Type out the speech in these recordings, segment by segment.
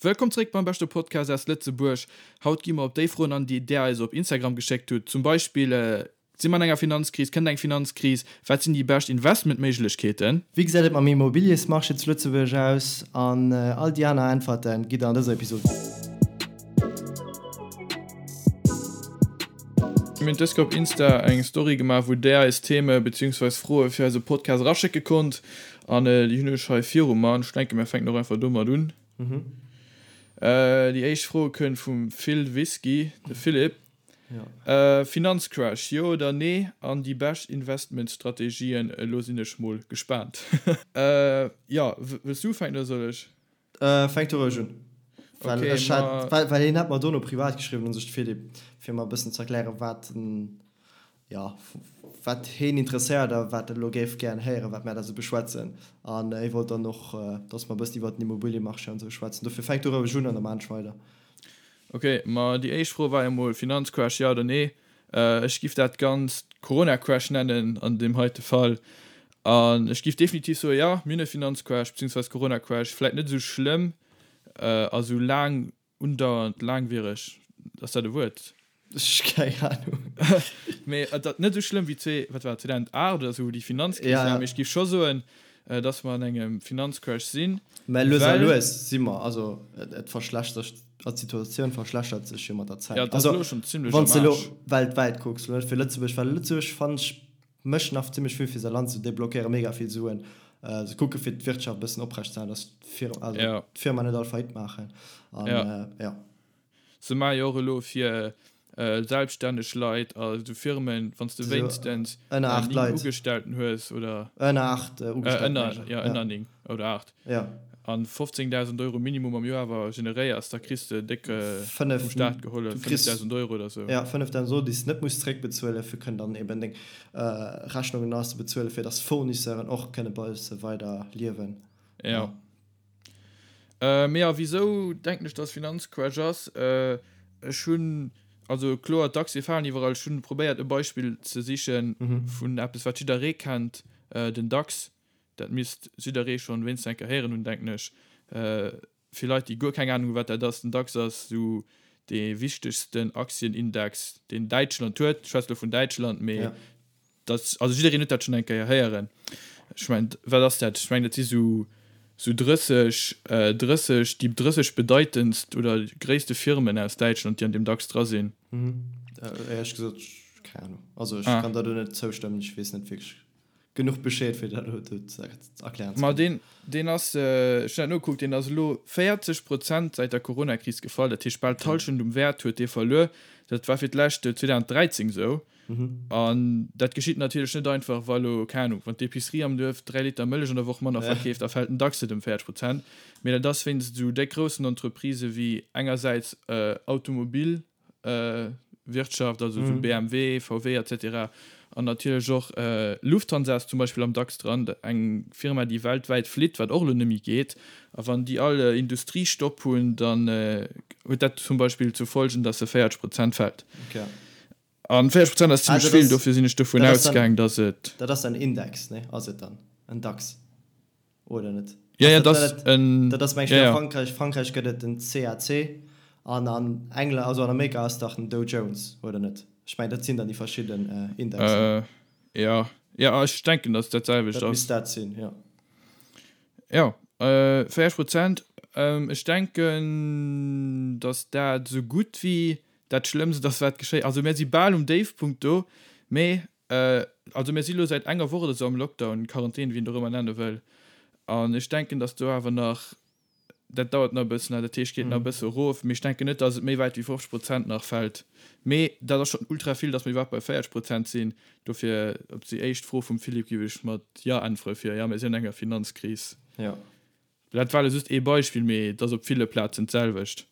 Wëllkomm zréck beim beschte Podcast aus Lëtzebuerg. Haut gi mer op déi Froen an, déi där eis op Instagram geschéckt hutt. Zum Beispill, Si mer an enger Finanzkris? Kënnt eng Finanzkris? Wat sinn déi bescht Investmentméiglechkeeten? Wéi gesäit et mam Immobiliesmarché zu Lëtzebuerg aus? An all déi aner Äntwerte gitt der an dëser Episod. Mir hunn dës Kéier op Insta eng Story gemaach, wou där eis Theme beziehungsweis Froe fir eise Podcast eraschécke konnt. An déi hunn ech hei viru mer. An ech denke mir fänken och einfach domat un. Déi éischt Fro kënnt vum Phil Whisky, de Philippe. Finanzcrash, jo oder nee? An déi bescht Investmentstrategien? Elo sinn ech mol gespaant. Jo, wëlls du ufänken oder soll ech? Fänk du roueg un. Well ech hat, well hien hat mer dono privat geschriwwen, u sech de Philippe, fir mer e bëssen ze erklären, wat en, jo, wat heen interesséiert a wat en elo géif gären héieren, wat mär da sou beschwätzen. An hie wollt dann och, dass mer e bëssen iwwert den Immobiliemarché an esou schwätzen. Dofir fänk du roueg un an da maan ech weider. Ok, ma déi éischt Fro war jo mol Finanzcrash, ja oder nee? Ech giff dat Ganzt Corona-Crash nennen an deem heite Fall. An ech giff definitiv soen, jo, mir hunn e Finanzcrash beziehungsweise Corona-Crash. Vläit net esou schlëmm a sou laang undauernd, laangwiereg, ass dat e Wuert? Ech keng Ahnung. Mee et ass net esou schlëmm wéi zwee, wat war et, 2008 oder esou, wou déi Finanzkris war. Mee ech giff scho soen, dass mer an engem Finanzcrash sinn, Mä lues a lues si mer, also et verschlechtert, d'Situatioun verschlechtert sech jo mat der Zäit. Ja, et ass elo schonn zimlech am Aarsch. Wann s de elo weltwäit kucks, elo net fir Lëtzebuerg, well Lëtzebuerg, fannen ech, mécht nach zimlech vill fir säi Land, se deblockéiere mega vill Suen, se kucke fir d'Wirtschaft e bëssen oprecht ze halen, dass d'Firma net all Faillite maachen an jo. Se maache jo och elo fir selbststänneg Leit a sou Firmen, wann s de wéinstens 9 Ugestellten hues oder. Ënner 8 Ugestellten. Ënner, jo, ënner 9 oder 8. Jo. An 15.000 Euro Minimum am Joer awer generéiers, da kriss de déck vum Staat gehollef, 5.000 Euro oder sou. Jo, 5.000 Euro, déi s de net muss zréckbezuelen, fir kënnen dann eben deng Rechnungen nach ze bezuelen, fir dass d'Fournisseuren och kënne bei se weider liewen. Jo. Mee a wisou denken ech dass Finanzcrash ass? Ech hunn, also kloer d'Aktie falen iwwerall, ech hunn probéiert e Beispill ze sichen vun eppes wat jidderee kennt, den DAX. Dat misst jidderee schonn wéinstens eng Kéier héieren hunn denken ech. Fir Leit déi guer keng Ahnung hunn wat dat ass, den DAX ass esou dee wichtegsten Aktienindex deen Däitschland huet. Ech schwätze lo vun Däitschland, mee Dat, also jiddereen huet dat schonn eng Kéier héieren. Ech mengen, wat ass dat? Ech mengen, dat si sou, sou 30, 30, déi 30 bedeitendst oder gréisste Firmen aus Däitschland, déi an deem DAX dra sinn. Éierlech gesot, keng Ahnung. Also ech kann der do net zoustëmmen, ech weess net wierklech genuch Bescheed, fir dat elo do ze erklären ze Ma kënnen. deen, deen ass, ech hunn dat nogekuckt, deen ass elo 40 Prozent säit der Coronakris gefall. Dat heescht, bal d'Hallschent um Wäert huet dee verluer. Dat war fir d'lescht 2013 esou. An dat geschitt natierlech net einfach, wa lo, keng Ahnung, wann d'Epicerie am Duerf 3 Liter Mëllech an der Woch manner verkeeft, da fält den DAX net ëm 40 Prozent. Mee dat ass wéinst esou déck groussen Entreprisë wéi engersäits Automobilwirtschaft, also esou BMW, VW et cetera, an natierlech och Lufthansa ass zum Beispill am DAX dran, eng Firma, déi weltwäit flitt, wat och elo net méi geet. A wann déi all Industriestopp hunn, dann huet dat zum Beispill zur Folgen, datt se 40 Prozent fält. An 40 Prozent ass zimmlech vill, dofir sinn ech dovun ausgaang, dass et. Dat ass en Index, ne? Ass et dann en DAX oder net? Jo, jo, dat ass en. Dat ass, meng ech, a Frankräich, Frankräich gëtt et den CAC an an England, also an Amerika ass dach den Dow Jones, oder net? Ech mengen, dat sinn dann déi verschidden Indexen. Jo, jo, ech denken, dass et dat selwecht ass. Dat misst dat sinn, jo. Jo, 40 Prozent. Ech denken, dass dat esou gutt wéi Dat Schlëmmst ass wat geschéi, also mir si bal um Déifpunkt do, mee also mir si lo säit enger Woch oder sou am Lockdown, Quarantän, wéi een et och ëmmer nenne wëll, an ech denken, datt do awer nach, dat dauert nach e bëssen, dat heescht geet nach e bësse erof, mee ech denken net, datt et méi wäit wéi 50 Prozent nach fält, mee dat ass schonn ultra vill, datt mir iwwerhaapt bei 40 Prozent sinn. Dofir op déi éischt Fro vum Philippe géif ech mat Jo äntwere fir, jo, mir sinn an enger Finanzkris. Jo. Dat war elo just ee Beispill, mee et ass op ville Plazen d'selwecht.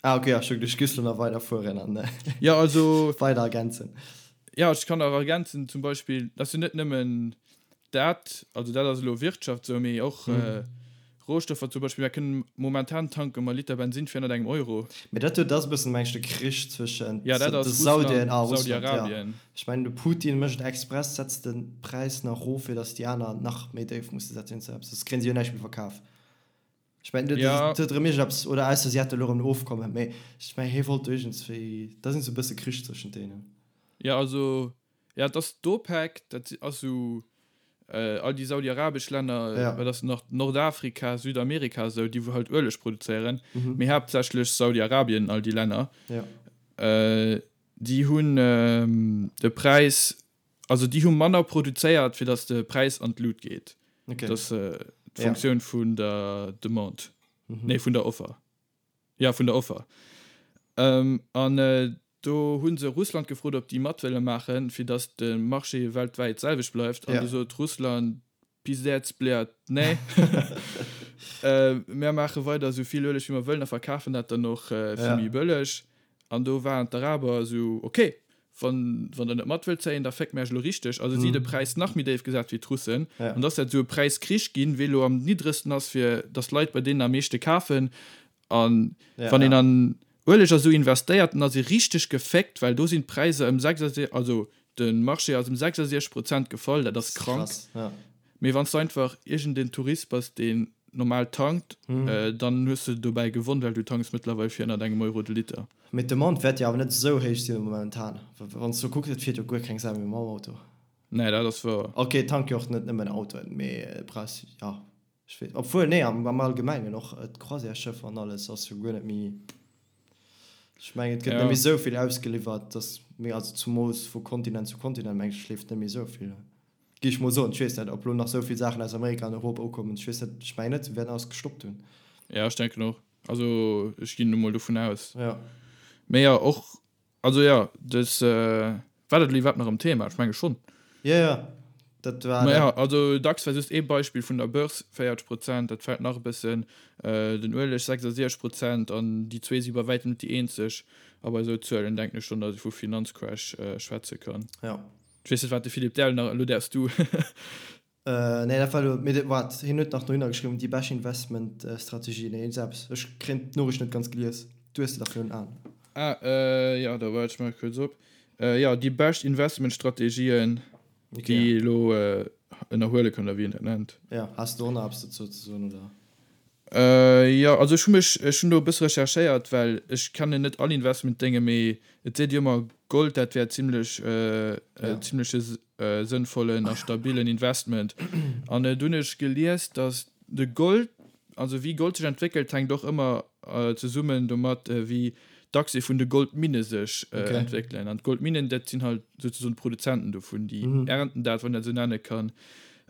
Ah ok, ech hu geduecht, giffs lo nach weider fueren an Jo, also weider ergänzen. Jo, ech kann nach ergänzen, zum Beispill, dat ass jo net nëmmen dat, also dat ass elo Wirtschaft esou, mee och Rohstoffer zum Beispill. Mir kënnen momentan tanke mer Liter Bensin fir ënnert engem Euro. Mee dat do ass e bëssen, meng ech, de Krich zwëschent Ja, dat de ass Saudien Russland, a Russland, jo. Saudi-Arabien. Ech mengen, de Putin mécht et express, setzt de Präis nach erof, fir datt déi aner nach méi déif musse setzen, soss kréien si jo näischt méi verkaf. Ech mengen, dat Ja. huet erëm iergendeppes, oder ausser si hätte elo erëm en Ofkommen, mee ech mengen, hie wollt do iergendswéi, da sinn se e bësse Krich zwëschent deenen. Ja, also, ja, et ass d'OPEC, dat ass esou all déi saudi-arabesch Länner, Ja. wat ass nach, Nordafrika, Südamerika esou, déi wou halt Ueleg produzéieren, Mhm. mee haaptsächlech Saudi-Arabien, all déi Länner, Ja. déi hunn de Präis, also déi hu manner produzéiert, fir datt de Präis an d'Lut geet. Okay. Dat ass d'Funktioun vun der Demande, nee, vun der Offer. Jo, vun der Offer. An do hu se Russland gefrot, ob déi mat wëlle maachen, fir datt de Marché weltwäit d'selwecht bleift. An du sot Russland, Pizdez, bliat, nee. Mär maache weider esou vill Ueleg, wéi mer wëllen a verkafen dat dann och fir méi bëlleg. An do waren d'Araber esou, Ok, wann, wann der net mat wëllt zéien, da féckt mär iech elo richteg. Also si de Präis nach méi déif gesat wéi d'Russen. An da ass dat esou e Präiskrich ginn, wee elo am niddregsten ass, fir datt d'Leit bei deenen am meeschte kafen. A wann een an Ueleg a sou investéiert, dann ass ee richteg geféckt, well do sinn d'Präisser ëm 66, also de Marché ass ëm 66 Prozent gefall, dat ass krank. Mee wann s du einfach iergendeen Tourist bass, deen normal tankt, dann hues du dobäi gewonn, well du tanks mëttlerweil fir ënnert engem Euro de Liter. Mee d'Demande wäert jo awer net esou héich sinn momentan. Wann s du kucks, et fiert jo guer keng Sau méi mam Auto. Nee, dat ass wouer. Ok, et tanke jo och net nëmmen Autoen, mee brauchs, jo, ech weess, obwuel, nee, am Allgemengen och d'Croisièresschëffer an alles ass jo guer net méi, ech mengen, et gëtt net méi esou vill ausgeliwwert, dass, mee also zumools vu Kontinent zu Kontinent, meng ech, leeft net méi esou vill. Géif ech mol soen. Ech weess net, ob lo nach esou vill Saachen aus Amerika an Europa ukommen. Ech weess net, ech mengen net, se wäerten alles gestoppt hunn. Ja, ech denken och. Also ech ginn elo mol dovun aus. Ja. Mee jo, och, also jo, dës, war dat elo iwwerhaapt nach am Thema? Ech menge schonn. Jo, jo, dat war Ma dat. jo, also DAX war just ee Beispill vun der Börse, 40 Prozent, dat fält nach e bëssen, den Ueleg 66 Prozent an déi zwee si bei wäitem net déi eenzeg. A bei esou Zuelen denken ech schonn, datt ee vu Finanzcrash schwätze kann. Ja. Ech weess net wat de Philippe Dell nach, elo däerfs du. Nee dat war elo, mee waart, hien huet nach dohinner geschriwwen, déi bescht Investment Strategie, nee iergend eppes, ech kréien d'Noriicht net ganz gelies, du hues se dach virun Aen. Ah jo, da waart ech maache kuerz op. Jo, déi bescht Investment Strategien déi ee elo ënnerhuele kann, oder wéi een dat nennt. Jo, has de och nach eppes dozou ze soen, oder? Jo, also ech hu mech, ech hunn do e bësse recherchéiert, well ech kennen net all Investmentdénge, mee et seet jo ëmmer, Gold, dat wär zimlech, zimleche sënnvollen a stabilen Investment. An do hunn ech gelies, datt de Gold, also wéi Gold sech entwéckelt, hänkt och ëmmer zesummen domat, wéi d'Aktie vun de Goldminne sech entwéckelen. An d'Goldminnen, dat sinn halt souzesoen d'Produzenten dovun, déi ernten dat, wann een dat esou nenne kann.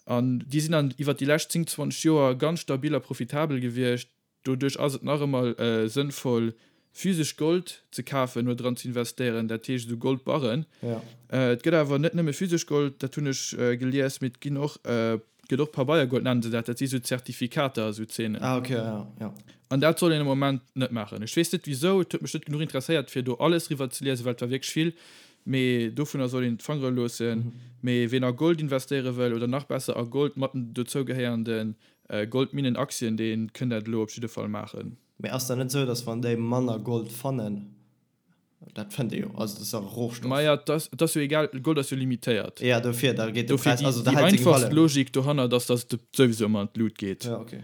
An déi sinn dann iwwert déi lescht 10, 20 Joer ganz stabil a profitabel gewiescht. Doduerch ass et nach ëmmer sënnvoll, physesch Gold ze kafen oder dran ze investéieren, dat heescht esou Goldbarren. Et gëtt awer net nëmme physesch Gold, dat hunn ech gelies, mee et ginn och, et gëtt och Pabeiergold nennen se dat, dat si sou Zertifikater, esou Zeenen. An dat soll een am Moment net maachen. Ech weess net wisou, et huet mech net genuch interesséiert, fir do alles riwwer ze liesen, well et war wierklech vill. Mee dovunner soll een d'Fangere loossen. Mee ween a Gold investéiere wëll, oder nach besser a Gold mat den dozougehéierende Goldminnen-Aktien, dee kënnt dat elo op jidde Fall maachen. Mee ass dat net esou, datt wann déi manner Gold fannen, dat fënnt ee jo, also dat ass e Rohstoff. Maja, et ass, et ass jo egal, Gold ass jo limitéiert. Jo, dofir, da geet de Dofir Präis, déi, also da déi hält seng einfachst Valeur. Logik dohannert ass, datt et souwisou ëmmer an d'Lut geet. Jo, ok.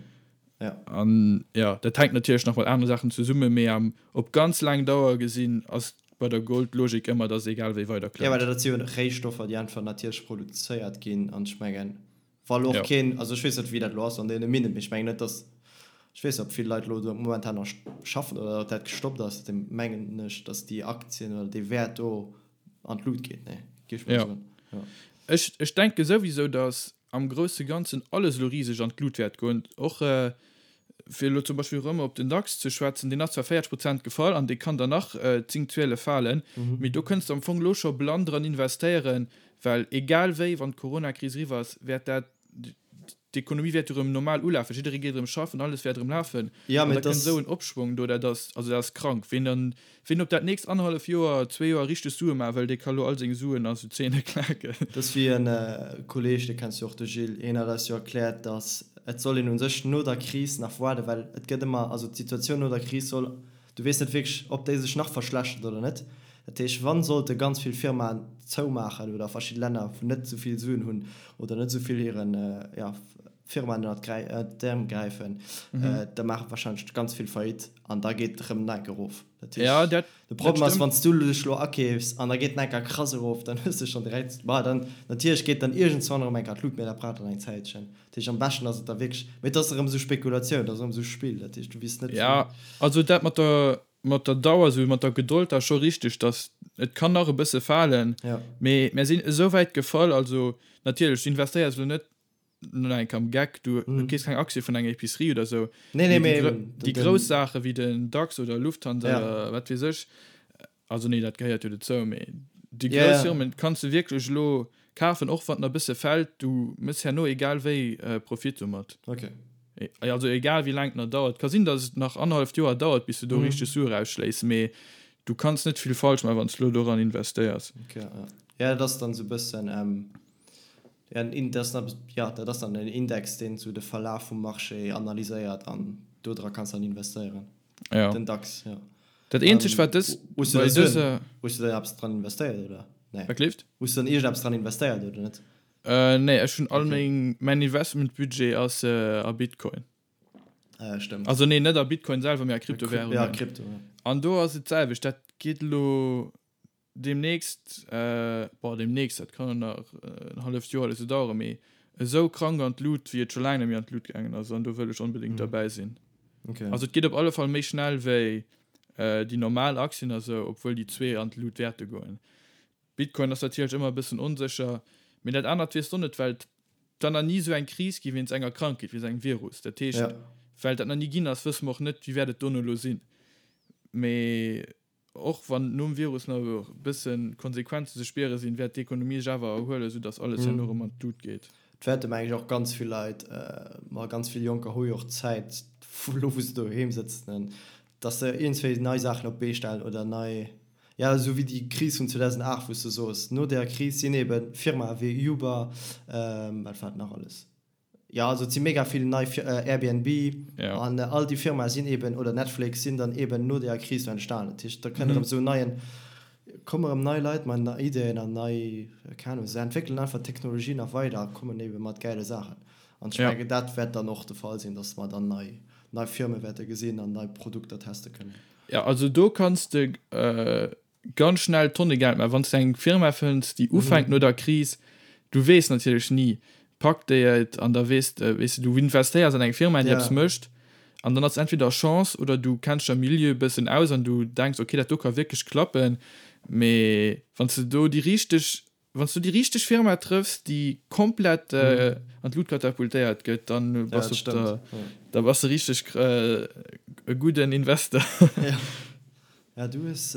Jo. An jo, dat hänkt natierlech nach mat anere Saachen zesummen, mee am, op ganz laang Dauer gesinn ass bei der Gold d'Logik ëmmer, dass egal wéi weider Jo, well klëmmt. dat si jo Réistoffer, déi einfach natierlech produzéiert ginn. An ech mengen, wa lo och Jo. keen, also ech weess net, wéi dat elo ass an deene Minnen, mee ech mengen net, dass, ech weess net, ob vill Leit elo do momentan nach schaffen oder ob dat gestoppt ass, da mengen ech, dass déi Aktien oder dee Wäert do an d'Lut geet. Nee, géif ech mol Jo. soen. Jo. Ech, ech denke souwisou, dass am grousse Ganzen alles elo riseg an d'Lut wäert goen. Och fir elo zum Beispill erëm op den DAX ze schwätzen, deen ass zwar 40 Prozent gefall an dee kann der nach 10, 12 falen, mee do kënns de am Fong elo scho blann dran investéieren, well egal wéi, wann d'Coronakris eriwwer ass, wäert dat, d'Ekonomie wäert jo erëm normal ulafen, jidderee geet erëm schaffen, alles wäert erëm lafen Ja, an mee da et kënnt ass. esou en Opschwong do, dat ass, also dat ass krank. Ween dann, Ween op dat nächst annerhallef Joer, zwee Joer richteg Sue maache wëll, dee ka lo all seng Suen a sou Zeene klaken. Dat ass wéi en Kolleeg, dee kenns du och, de Gilles, hien hat eis jo erkläert, datt et soll een u sech no der Kris nach waarden, well et gëtt ëmmer, also d'Situatioun no der Kris soll, du weess net wierklech, ob déi sech nach verschlechtert oder net. Dat heescht, wann sollte ganz vill Firmaen zoumaachen oder verschidde Länner, wou net esou vill Suen hunn oder net esou vill hiren, jo. Firmaen ënnert d'Äerm gräifen, da maache warscheinlech ganz vill Faillite an da geet et erëm nach enk erof. Dat heescht, Ja, dat, de dat Problem ass, stëmmt. wann s du dech elo akeefs an da geet en enker krass erof, dann hues de schonn direkt, ma dann natierlech geet dann iergendzwann erëm enker an d'Lut, mee dat brauch dann eng Zäitchen. Dat heescht, am beschten ass et da wierklech, mee et ass erëm esou Spekulatioun, et ass erëm esou Spill, dat heescht, du weess net Ja, wou. also dat mat der, mat der Dauer, esou mat der Gedold, dat ass scho richteg, dass et kann nach e bësse falen, Ja. mee mär sinn esou wäit gefall, also natierlech, du investéiers elo net no enk am Geck, du keefs keng Aktie vun enger Epicerie oder sou. Nee, nee, mee mee déi grouss Saache wéi den DAX oder Lufthansa ja. oder wat weess ech, also nee, dat gehéiert jo dozou, mee déi Ja, grouss ja. Firmen kanns du wierklech elo kafen, och wann en e bësse fält, du méchs herno egal wéi Profit domat. Okay. Also egal wéi laang et nach dauert. Ka sinn, datt et nach annerhalleft Joer dauert, bis du do richteg Sue rausschléis, mee du kanns net vill falsch maachen, wann s du elo doran investéiers. Okay, ja. Ja, dat ass dann esou e bëssen, Ja, en dat ass dann, ja, dat ass dann en Index, deen esou de Verlaf vum Marché analyséiert an do dra kanns dann investéieren. Ja. Den DAX, ja. Dat eenzegt, wat dës, Hues du bei da Suen, dëser. hues du da eppes dran investéiert, oder? Nee. Wat gleeft? Hues du dann iergendeppes dran investéiert, oder net? Äh, nee, ech hunn all Okay. meng, mäin Investmentbudget ass a Bitcoin. Ah ja, stëmmt. Also nee, net a Bitcoin selwer, mee a A Kryp-, ja, Kryptowährungen. Krypto, ja. An do ass et d'selwecht, dat geet elo Demnächst, boah demnächst, dat kann nach en halleft Joer oder sou daueren, mee esou krank an d'Lut wéi et scho laang net méi an d'Lut gaangen ass an do wëll ech onbedéngt derbäi sinn. Okay. Also et geet op alle Fall méi schnell wéi déi normal Aktien a sou, obwuel déi zwee an d'Lut wäerte goen. Bitcoin ass natierlech ëmmer e bëssen onsécher, mee dat anert weess de och net, well et dann nach ni esou eng Kris gi wéinst enger Krankheet, wéinst engem Virus. Dat heescht, well dat nach ni ginn ass, wësse mer och net, wéi wäert et dono elo sinn. Mee Och wann nom Virus nach e bësse Konsequenzen ze spiere sinn, wäert d'Ekonomie sech awer erhuelen, sou datt alles herno erëm an d'Lut geet. Et wäerte meng ech och ganz vill Leit, ma ganz vill Jonker hu jo och Zäit, elo wou se doheem sëtzen, datt se iergendswéi nei Saachen op d'Bee stellen oder nei, jo esou wéi déi Kris vun 2008, wou s de soos, no där Kris sinn eebe Firmae wéi Uber, wat war et nach alles? Jo, also et si mega vill nei Airbnb an all déi Firmae sinn eben, oder Netflix, sinn dann eben no deeër Kris do entstanen. Dat heescht, da kënnt erëm esou neien, komme erëm nei Leit mat nei Ideeën an nei, keng Ahnung, se entwéckelen einfach d'Technologie nach weider a kommen ebe mat gäile Saachen. An ech mengen, dat wäert dann och de Fall sinn, datt mer dann nei, nei Firme wäerte gesinn an nei Produkter teste kënnen. Jo, also do kanns de ganz schnell Tonne Geld maachen, wann s de eng Firma fënns, déi ufänkt no der Kris, du weess natierlech ni, packt déi et an da weess de, weess de, du investéiers an eng Firma, déi eppes mécht an dann ass entweder Chance oder du kenns dech am Milieu e bëssen aus an du denks, okay, dat do ka wierklech klappen, mee wann s de do déi richteg Wann s du déi richteg Firma trëffs, déi komplett an d'Lut katapultéiert gëtt, dann bass du op der, da bass de richteg e gudden Investor. Ja, du hues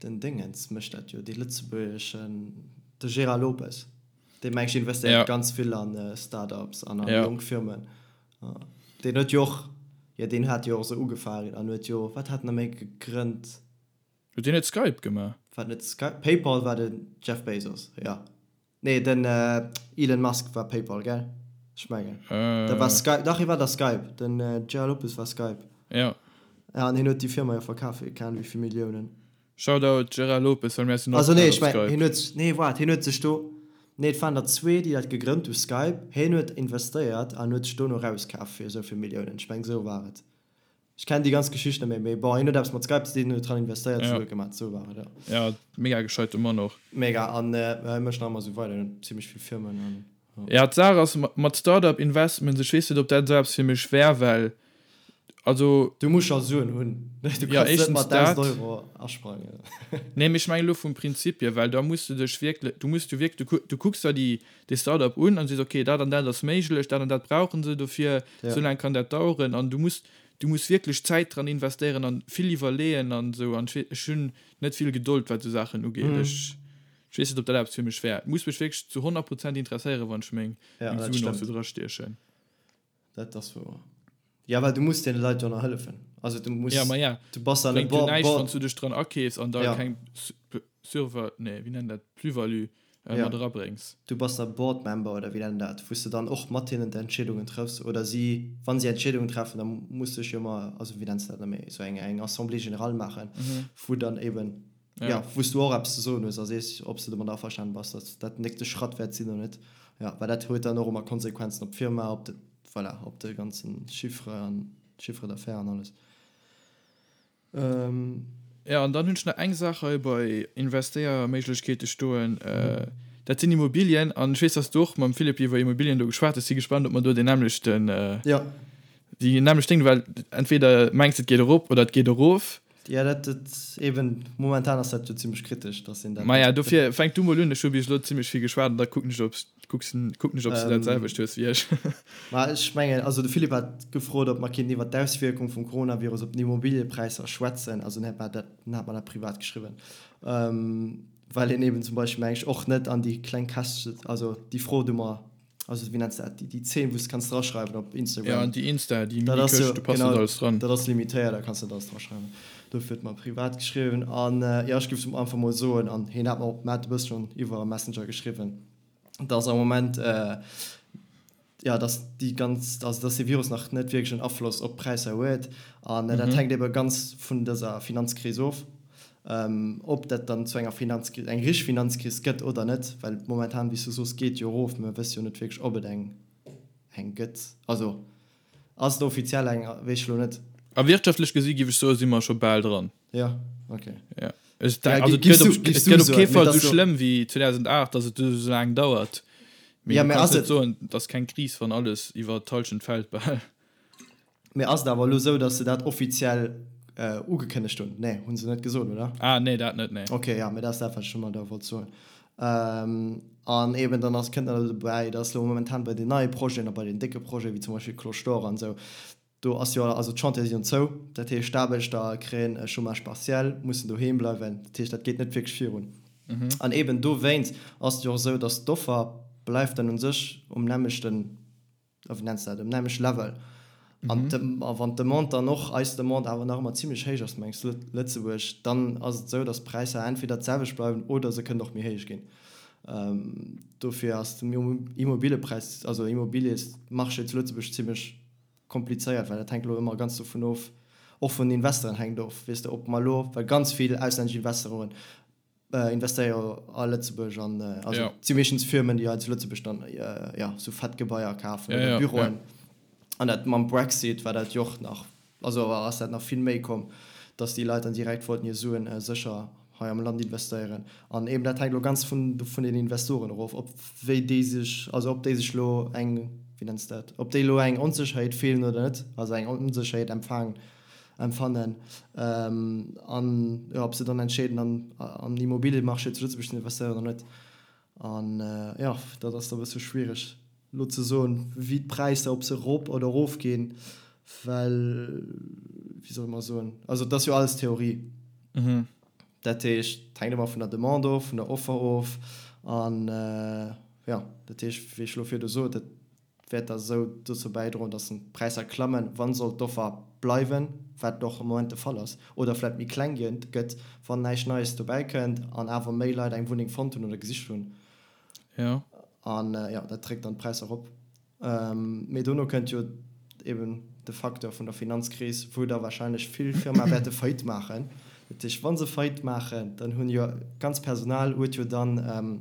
den Déngens mécht dat jo, dee lëtzebuergeschen, de Gérard Lopez, dee meng ech investéiert ganz vill an Start-ups an a jonk Firmen. Deen huet jo och, jo deen hat jo och esou ugefaangen an huet jo, wat hat en nach méi gegrënnt? Huet deen net Skype gemaach? War net Skype? Paypal war den Jeff Bezos, jo. Nee, den Elon Musk war Paypal, gell? Ech mengen. Dat war Skype, dach, hie war da Skype. Den Gerard Lopez war Skype. Jo. Ja, an hien huet déi Firma jo verkaf fir keng Ahnung wéi vill Milliounen. Shoutout Gerard Lopez, well mir sinn och Also grad nee, op ech mengen, Skype. hien huet, nee, waart, hien huet sech do, nee, et waren der zwee, déi dat gegrënnt hu, Skype. Hien huet investéiert an huet sech dono erauskaf fir esou vill Milliounen. Ech mengen, esou war et. Ech kennen déi ganz Geschicht net méi, mee bon, hien huet eppes mat Skype ze dinn, huet dran investéiert, Ja. Sue gemaat, sou war et, jo. Ja, mega gescheite Mann och. Mega, an hie mécht nach ëmmer sou weider, hien huet zimmlech vill Firmen an jo. Ja, d'Saach ass mat Startup Investments, ech weess net, ob dat esou eppes fir mech wär, well also. Du muss scho Suen hunn, du Ja, kanns net éischtens mat 1.000 dat. Euro asprangen. Nee, mee ech mengen elo vum Prinzip hier, well da muss du dech wierklech, du muss du wierklech, du du kucks der déi dee Startup un an sees, okay, dat an dat ass méiglech, dat an dat brauche se dofir, Ja. esou laang kann dat daueren an du muss, du muss wierklech Zäit dran investéieren an vill iwwerleeën an esou an ech wee, ech hunn net vill Gedold wat esou Saachen ugeet. Mhm. Ech, ech weess net, ob dat eppes fir mech wär. Et muss mech wierklech zu 100 Prozent interesséieren, wann ech meng, Ja, meng dat Suen och stëmmt. sou drastiechen. Dat ass wouer. Ja, well du muss deene Leit jo nach hëllefen. Also du muss, Ja, ma ja. du bass dann e Bréngt jo Board, näischt, Board. wann s du dech dran akeefs an da Ja. keng Surva, nee, wéi nennt dat, Plus-value Ja. mat erabréngs. Du bass da Board Member oder wéi nennt dat, wou s de dann och mat hinnen d'Entscheedungen trëffs oder si, wa si Entscheedungen treffen, da muss sech jo ëmmer, also wéi nenns de dat nach méi, esou eng eng Assemblée générale maachen, wou dann eben, ja, wou s du och eppes ze soen hues a sees, ob s de domat averstanen bass, datt dat den nächste Schratt wäert sinn oder net. Ja, well dat huet dann och ëmmer Konsequenzen op d'Firma, op de. Voilà, op de ganzen Chiffre an Chiffre d'affaires an alles. Jo, an dann hunn ech nach eng Saach hei bei Investéierméiglechkeete stoen, dat sinn Immobilien. An ech weess, dass du och mam Philippe iwwer Immobilien do geschwat hues. Si gespannt, ob mer do deen nämmlechten, déi nämmlecht Déng, well entweder mengs de et geet erop oder et geet erof. Jo, dat, dat eben, momentan ass dat jo zimlech kritesch, dass een dat. Maja, dofir fänk du mol un, ech hu bis elo zimlech vill geschwat an da kucken ech, ob Kucks, kucken ech, ob s du dat selwecht hues wéi ech. Ma ech mengen, also de Philippe hat gefrot, ob mer kéinten iwwert d'Auswierkung vum Coronavirus op d'Immobiliëpräisser schwätzen. Also en hat mer dat, en hat mer dat privat geschriwwen, well een eben zum Beispill, meng ech, och net an déi kleng Käschtche, also déi Fro, déi mer, also wéi nenns de dat, déi 10, wou s de kanns draschreiwen op Instagram. Ja, an déi Insta, déi Mini-Këscht, do passt net alles dran. Dat ass limitéiert, da kanns de net alles draschreiwen. Dofir huet mer privat geschriwwen. An jo, ech géif einfach mol soen, an hien hat mer och, mer hat e bësse schonn iwwer Messenger geschriwwen, dass am Moment, jo, dass déi ganz, also dass dee Virus nach net wierklech en Afloss op d'Präisser huet. An dat hänkt ebe ganz vun dëser Finanzkris of, ob dat dann zu enger Finanzkris, eng richteg Finanzkris gëtt oder net. Well momentan, wéi s du soos, geet jo erof, mä mir wësse jo net wierklech, ob et eng eng gëtt. Also ass et offiziell eng, weess ech elo net. A wirtschaftlech gesi giff ech soe si mer scho bal dran. Ja, okay. Ja. Ech denk, also, et gëtt op, et gëtt op kee Fall esou schlëmm wéi 2008, datt et esou laang dauert. Mee ja, du kanns net soen, et ass keng Kris, wann alles iwwer d'Hallschent fält bal. Mee ass et awer elo esou, datt se dat offiziell ugekënnegt hunn? Nee, hu se net gesot, oder? Ah, nee, dat net, nee. Okay, ja, mee dat ass dat, wat ech ëmmer da wollt soen. An eben dann ass, kënnt nach dobäi, datt elo momentan bei den neie Projeten a bei den décke Projeten, wéi zum Beispill Cloche d'Or an esou, Do ass jo, also d'Chantiere sinn jo zou, dat heescht d'Aarbechter kréien e Chômage partiel, mussen doheem bleiwen, dat heescht dat geet net wierklech virun. An eben dowéinst ass et jo och esou, datt d'Offer bleift dann u sech um nämmlechten, wéi nenns de dat, um nämmlechte Level. An a wann d'Demande dann och, eis Demande awer nach ëmmer zimlech héich ass, mengs Lëtzebuerg, dann ass et esou, datt d'Präisser entweder d'selwecht bleiwen oder se kënnen och méi héich ginn. Dofir ass den Immobiliëpräis, also Immobiliësmarché zu Lëtzebuerg zimlech komplizéiert, well dat hänkt elo ëmmer ganz dovun of, och vun den Investoren hänkt of, weess de, ob mer elo, well ganz vill auslännesch Investoren investéiere jo a Lëtzebuerg an also et si meeschtens Firmen, déi hei zu Lëtzebuerg dann jo sou fett Gebaier kafen oder Büroen. An dat mam Brexit war dat jo och nach Also ass dat nach vill méi komm, dass déi Leit dann direkt wollten hir Suen sécher hei am Land investéieren. An eben dat hänkt elo ganz vun vun den Investoren erof, ob wéi déi sech, also ob déi sech elo eng, wéi nenns de dat, ob déi elo eng Onsécherheet fillen oder net, also eng Onsécherheet empfaangen, empfannen an jo ob se dann entscheeden an an den Immobiliemarché zu Lëtzebuerg ze investéieren oder net. An jo, dat ass da e bësse schwiereg elo ze soen, wéi d'Präisser, ob se erop oder erof ginn, well, wéi solle mer soen, also et ass jo alles Theorie. Dat heescht, et hänkt ëmmer vun der Demande of, vun der Offer of. An jo, dat heescht, wéi ech elo virdu sot, et wäert da sou dozou bäidroen, dass d'Präisser klammen, wann sollt d'Offer bleiwen, wat och am Moment de Fall ass, oder vläit méi kleng gëtt, wann näischt Neies dobäi kënnt an awer méi Leit eng Wunneng fonnt hunn oder gesicht hunn. Jo. An jo, dat dréckt dann d'Präisser erop. Mee dono kënnt jo eben de Facteur vun der Finanzkris, wou da wahrscheinlech vill Firmae wäerte Faillite maachen. Dat heescht, wa se Faillite maachen, dann hunn jo d'ganz Personal huet jo dann,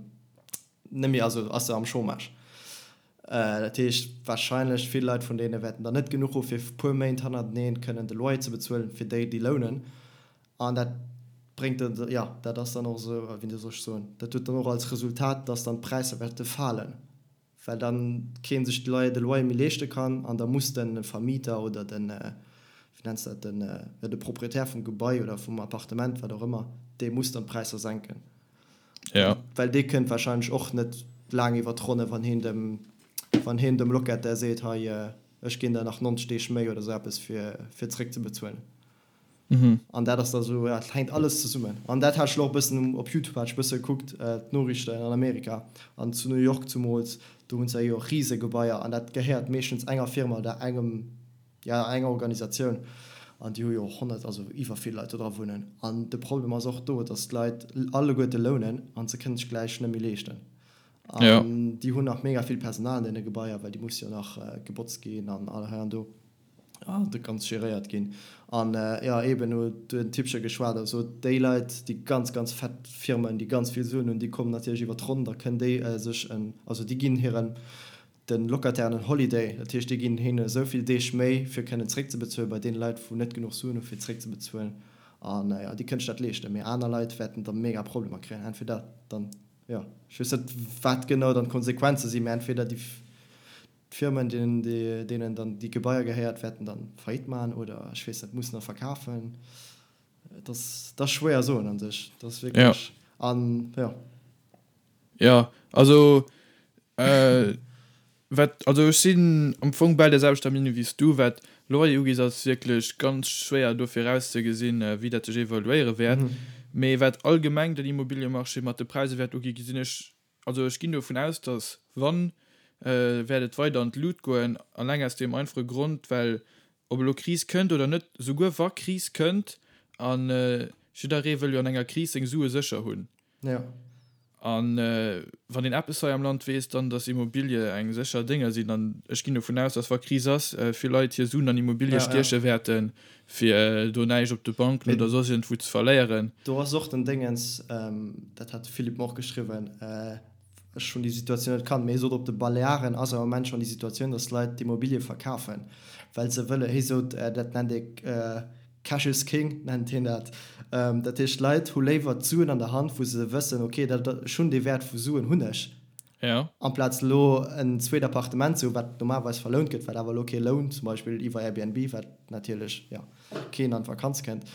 Net méi, also ass se am Chômage. Dat heescht, wahrscheinlech vill Leit vun deene wäerten dann net genuch hu fir puer Méint hannerteneen kënnen de Loyer ze bezuelen, fir déi, déi lounen. An dat bréngt dann, jo, dat ass dann och esou, wéi soll ech soen, dat huet dann och als Resultat, dass dann d'Präisser wäerte falen, well dann kee sech de Loyer, de Loyer méi leeschte kann an da muss de Vermieter oder den, wéi nenns de dat, den, jo, de Proprietär vum Gebai oder vum Appartement, wat och ëmmer, dee muss dann d'Präisser senken. Ja. Well dee kënnt wahrscheinlech och net laang iwwer d'Ronne, wann heen dem, wann heen dem Locataire seet, hei, ech ginn der nach 90 Deeg méi oder sou eppes, fir, fir zréckzebezuelen. Mhm. An dat ass da sou, ja, et hänkt alles zesummen. An dat hat ech lo och e bëssen op Youtube hat ech e bësse gekuckt, d'Noriichten an Amerika an zu New York zumools, do hunn se jo Risegebaier an dat gehéiert meeschtens enger Firma oder engem, Jo, eng Organisatioun, an déi hu jo och 100, also iwwer vill Leit do dra wunnen. An de Problem ass och do, datt d'Leit alleguerte lounen an se kënnen sech gläich net méi leeschten. An déi hunn nach mega vill Personal an deene Gebaier, well déi musse jo nach gebotzt ginn an hei an do an dat Ganzt geréiert ginn. An jo, eeben huet den Typche geschwat a sot, déi Leit, déi ganz, ganz fett Firmen, déi ganz vill Suen hunn, déi kommen natierlech iwwer d'Ronn, da kënnen déi sech en, also déi ginn hiren. De Locatairen en Holiday, dat heescht déi ginn hinne esou vill Deeg méi fir kënnen zréckzebezuelen, bei deene Leit wou net genuch Suen hu fir zréckzebezuelen an jo déi kënnen sech dat leeschten, mee aner Leit wäerten da mega Problemer kréien, entweder dann jo ech weess net wat genau dann d'Konsequenze sinn, mee entweder déi d'Firmen deenen deenen dann déi Gebaier gehéiert wäerten dann Faillite maachen oder ech weess net mussen da verkafen, et ass et ass schwéier soen an sech, et ass wierklech an jo. Jo, also wat, also ech sinn am Fong bal der selwechter Meenung wéi s du. Wat Loyer ugeet, ass et wierklech ganz schwéier do virauszegesinn, wéi dat sech evoluéiere wäert. Mee wat allgemeng den Immobiliemarché mat de Präisser wäert uginn, gesinn ech, also ech ginn dovun aus, datt wann, wäert et weider an d'Lut goen, alleng aus deem einfache Grond, well ob elo Kris kënnt oder net, souguer wa Kris kënnt, a jidderee wëll jo an enger Kris seng Sue sécher hunn, Ja. An wann een eppes hei am Land weess, dann datt Immobilie eng sécher Dénger sinn. An ech ginn dovun aus, datt wa Kris ass, vill Leit hir Suen an Immobilie stieche wäerten, fir do näischt op de Banken oder soss iergendwou ze verléieren. Do ass och den Déngens, dat hat de Philippe mer och geschriwwen, ech hunn déi Situatioun net kannt, mee hie sot, op de Balearen ass am Moment schonn déi Situatioun, datt Leit d'Immobilie verkafen, well se wëlle, hie sot, dat nennt ee Cash is king nennt hien dat. Dat heescht, d'Leit hu léiwer d'Suen an der Hand, wou se wëssen, ok, dat, ech hunn dee Wäert vu Suen hunn ech, amplaz elo en zweet Appartement ze hunn, wat normalerweis verlount gëtt, wat awer elo kee lount, zum Beispill iwwer Airbnb, wat natierlech, jo, keen an d'Vakanz kënnt.